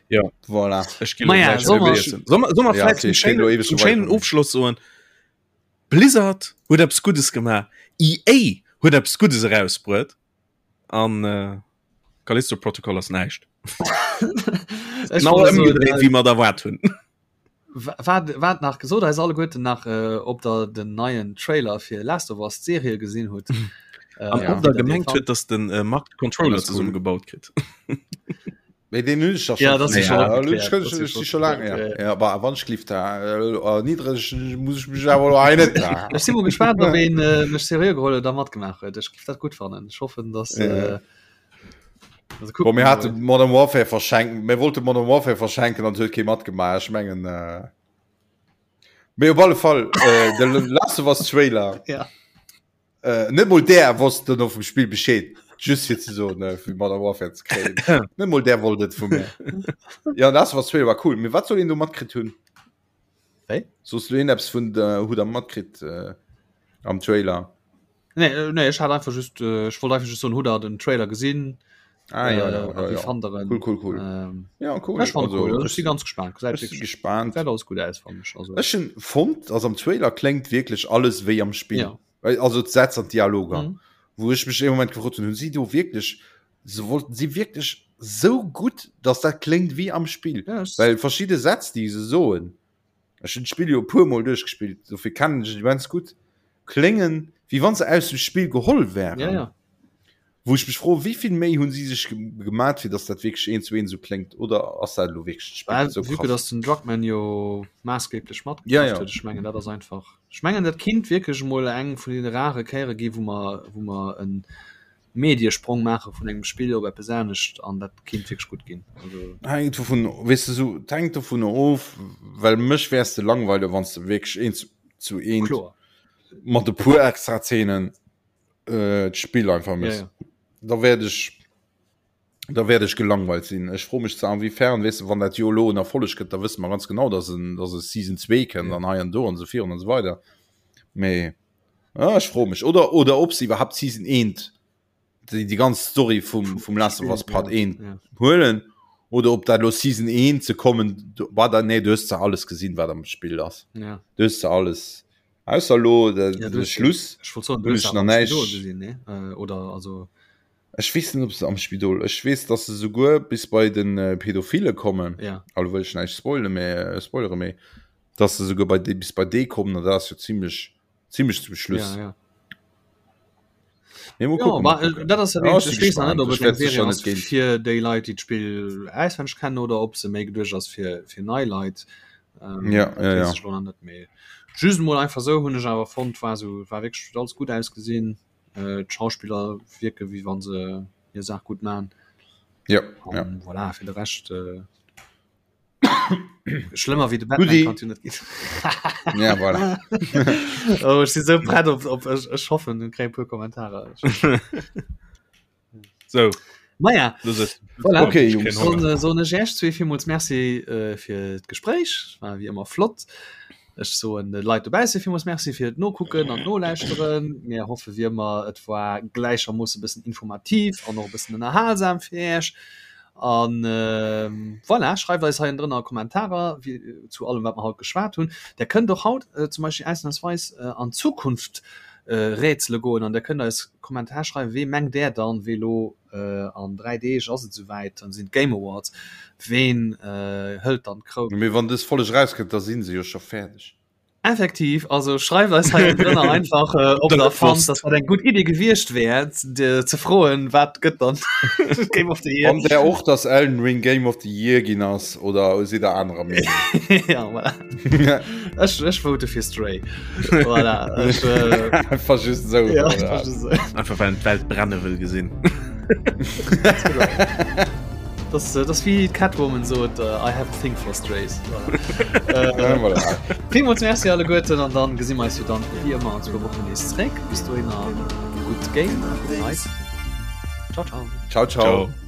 Ja. Voilà. Ech ginn Ma ja, gleich soll mer- iessen. Soll mer- soll mer Ja, vläicht okay, zum ich geh lo schéinen, ewech zum so weit schéinen kommen. Ofschloss soen, Blizzard huet eppes Guddes gemaach, EA huet eppes Guddes erausbruet an äh, Callisto Protocol ass näischt. Ech Genau wollt soen, ëmgedréit, äh, wéi mer et erwaart hunn. Wat wat nach gesot eis alleguerten nach äh, ob der den neien Trailer fir Last of Us d'Serie gesinn hutt. Äh, An Ja. ob der wie der gemengt dee huet, dass den äh, Marc de Controller Das ist cool. zesummegebaut kritt. Mee den hunn ech doch Ja, schon das ist ja, schon ja, opgeklärt. ich kann- Das ist ich- schon ich schon lang, ja. opgeklärt, Ja, aber wann ich lief da äh, niedrig muss ich mich awer lo hei net da. Ech si mol gespannt, ob een äh, mech seriö geholl huet a matgemaach huet. Ech giff dat gutt fannen. Ech hoffen, dass Ja. äh, also Boah, kucken mir wir hate mol. Modern Warfare verschenken mir wollte Modern Warfare verschenken an huet kee matgemaach. Ech mengen äh, mee op alle Fall äh, de Last of Us Trailer Ja. äh, net mol der wosst dann vum Spiel Bescheed just fir ze soen äh, fir Modern Warfare ze kréien. Net mol der wollt et vu mir. Ja Last of Us Trailer war cool. Mee wat soll een do matkritt hunn? Wéi? Soos du een eppes vun der hu der matkritt äh, am Trailer? Nee, äh, nee, ech hat einfach just äh, ech wollt einfach just soen, hutt der den Trailer gesinn? Ah, ja, ja, Äh, ja, wie ja. fannt der en? Cool, cool, cool. Ähm, Ja, cool. ech fand Also, cool. Also, ech ech si ganz gespannt. Gesäit ech si wierklech gespannt. gesäit alles gutt aus, fand ech. Also, Ech hunn fonnt, also am Trailer kléngt wierklech alles wéi am Spill. Ja. Well, Also d'Sätz an d'Dialoger. Mhm. Wou ech mech ee Moment gefrot hunn, hunn si do wierklech, se wollten si wierklech sou gutt, dass dat kléngt wéi am Spill. Ja, ech- Well verschidde Sätz, déi se soen, ech hunn d'Spill jo e puer Mol duerchgespillt, dofir kennen ech et immens gutt, kléngen, wéi wann se aus dem Spill geholl wären. Ja, ja. Wou ech mech froen, wéi vill Méi hunn si sech gemat, fir datt dat wierklech eent zu eent esou kléngt, oder ass dat elo wierklech d'Spill Well, esou vue que krass? datt den Druckmann jo maassgeblech Ja, matgeschafft ja. huet, ech mengen dat ass einfach, ech mengen dat kinnt wierklech emol eng vun deene rare Kéiere gi wou mer, wou mer e Mediesprong maache vun engem Spill op eppes anescht an dat kinnt wierklech gutt ginn. Also. Hänkt dovun, weess de, sou, et hänkt dovun of, well mech wäers de langweile wann s de wierklech eent zu eent Kloer. mat e puer extra Zeenen äh, d'Spill einfach Ja, miss. ja. Da werd ech da werd ech gelangweilt sinn. Ech fro mech zwar inwiefern, weess de, wann dat jo elo en Erfolleg gëtt, da wësse mer ganz genau, dass en dass e Season 2 kënnt Ja. an hei an do an esou virun an esou weider. Mee ah, ech fro mech oder oder ob se iwwerhaapt Season 1 déi déi ganz Story vum vum Last of Us Part 1 Ja. huelen oder ob dat lo Season 1 ze kommen du, war da nee du hues zwar alles gesinn wat am Spill ass. Ja. Du hues zwar alles Ausser lo de, Ja, du de hues- Schluss. Ech wollt soen, du Hunn hues ech awer nach am näischt. Spidol gesinn, ne? Äh, oder also Ech weess net, ob se am Spidol. Ech weess, dass se souguer bis bei den äh, Pädophile kommen. ja. Also wëll ech näischt spoile mee äh, spoilere mee dass se souguer bei de, bis bei dee kommen, an dat ass jo zimmlech zimmlech zum Schluss. Ja, ja. Mee mol Ja, kucken, ma, mol äh, kucken. dat ass ja Ja, wirklich, ech ech si weess nach net, gespaant. ob Ech et eng wäert Serie sécher ass net géint. fir déi Leit, déi d'Spill auswenneg kennen oder ob se méi geduecht ass fir, fir nei Leit. Ähm, Ja, dat ja, weess ja. ech lo nach net méi. Just mol einfach sou hunn ech awer fonnt, war sou, war wierklech huet alles gutt ausgesinn. Äh, d'Schauspiller wierke wéi wann se hir Saach gutt man. Ja, ja. An voilà, fir de Rescht äh, schlëmmer wéi de Batman Gutti. kann jo net ginn. Ja, voilà. oh, ech si sou prett op, op ech, ech hoffen, kréie puer Kommentarer. So, Maja, das ist voilà. Okay, Jungs. Soen äh, soen ech Iech zwee villmools Merci äh, fir d'Gespréich. War wéi ëmmer flott. Ech soen de Leit dobausse villmools Merci fir d'Nokucken an d'Nolauschteren. Mir hoffe wéi ëmmer, et war gläichermoosse bëssen informativ an och e bëssen ënnerhalsam fir Iech. An äh, voilà, schreift eis hei ënnendrënner Kommentarer wie, zu allem, wat mer haut geschwat hunn. Der kënnt och haut äh, zum Beispill ausnahmsweis äh, an Zukunft äh, rätsele goen an der kënnt eis Kommentar schreiwen, wee mengt där dann, wee lo äh, an 3 Deeg ass et souwäit, dann sinn d'Game Awards, ween äh, hëlt dann d'Kroun? Mee wann dës Folleg erauskënnt, da sinn se jo scho fäerdeg. Effektiv, also schreift eis hei drënner einfach, äh, ob der fannt, dass dat eng gutt Idee gewiescht wär, de, ze froen, wat gëtt dann Game of the Year. Fannt der och, dass Elden Ring Game of the Year ginn ass oder sidd der anerer Meenung? ja, voilà. Ech, ech vote fir Stray. Voilà, ech, äh, Einfach just so. ja, einfach just so. Einfach well en d'Welt brenne wëll gesinn. Das, äh, das wie Catwoman sot äh, I have a thing for strays. Voilà. Ja, Äh, voilà. Villmools Merci alleguerten an dann gesi mer eis jo dann wéi ëmmer an zwou Wochen nees zréck. Bis dohinner gutt Game, gutt Night. Ciao, ciao. Ciao, ciao. Ciao.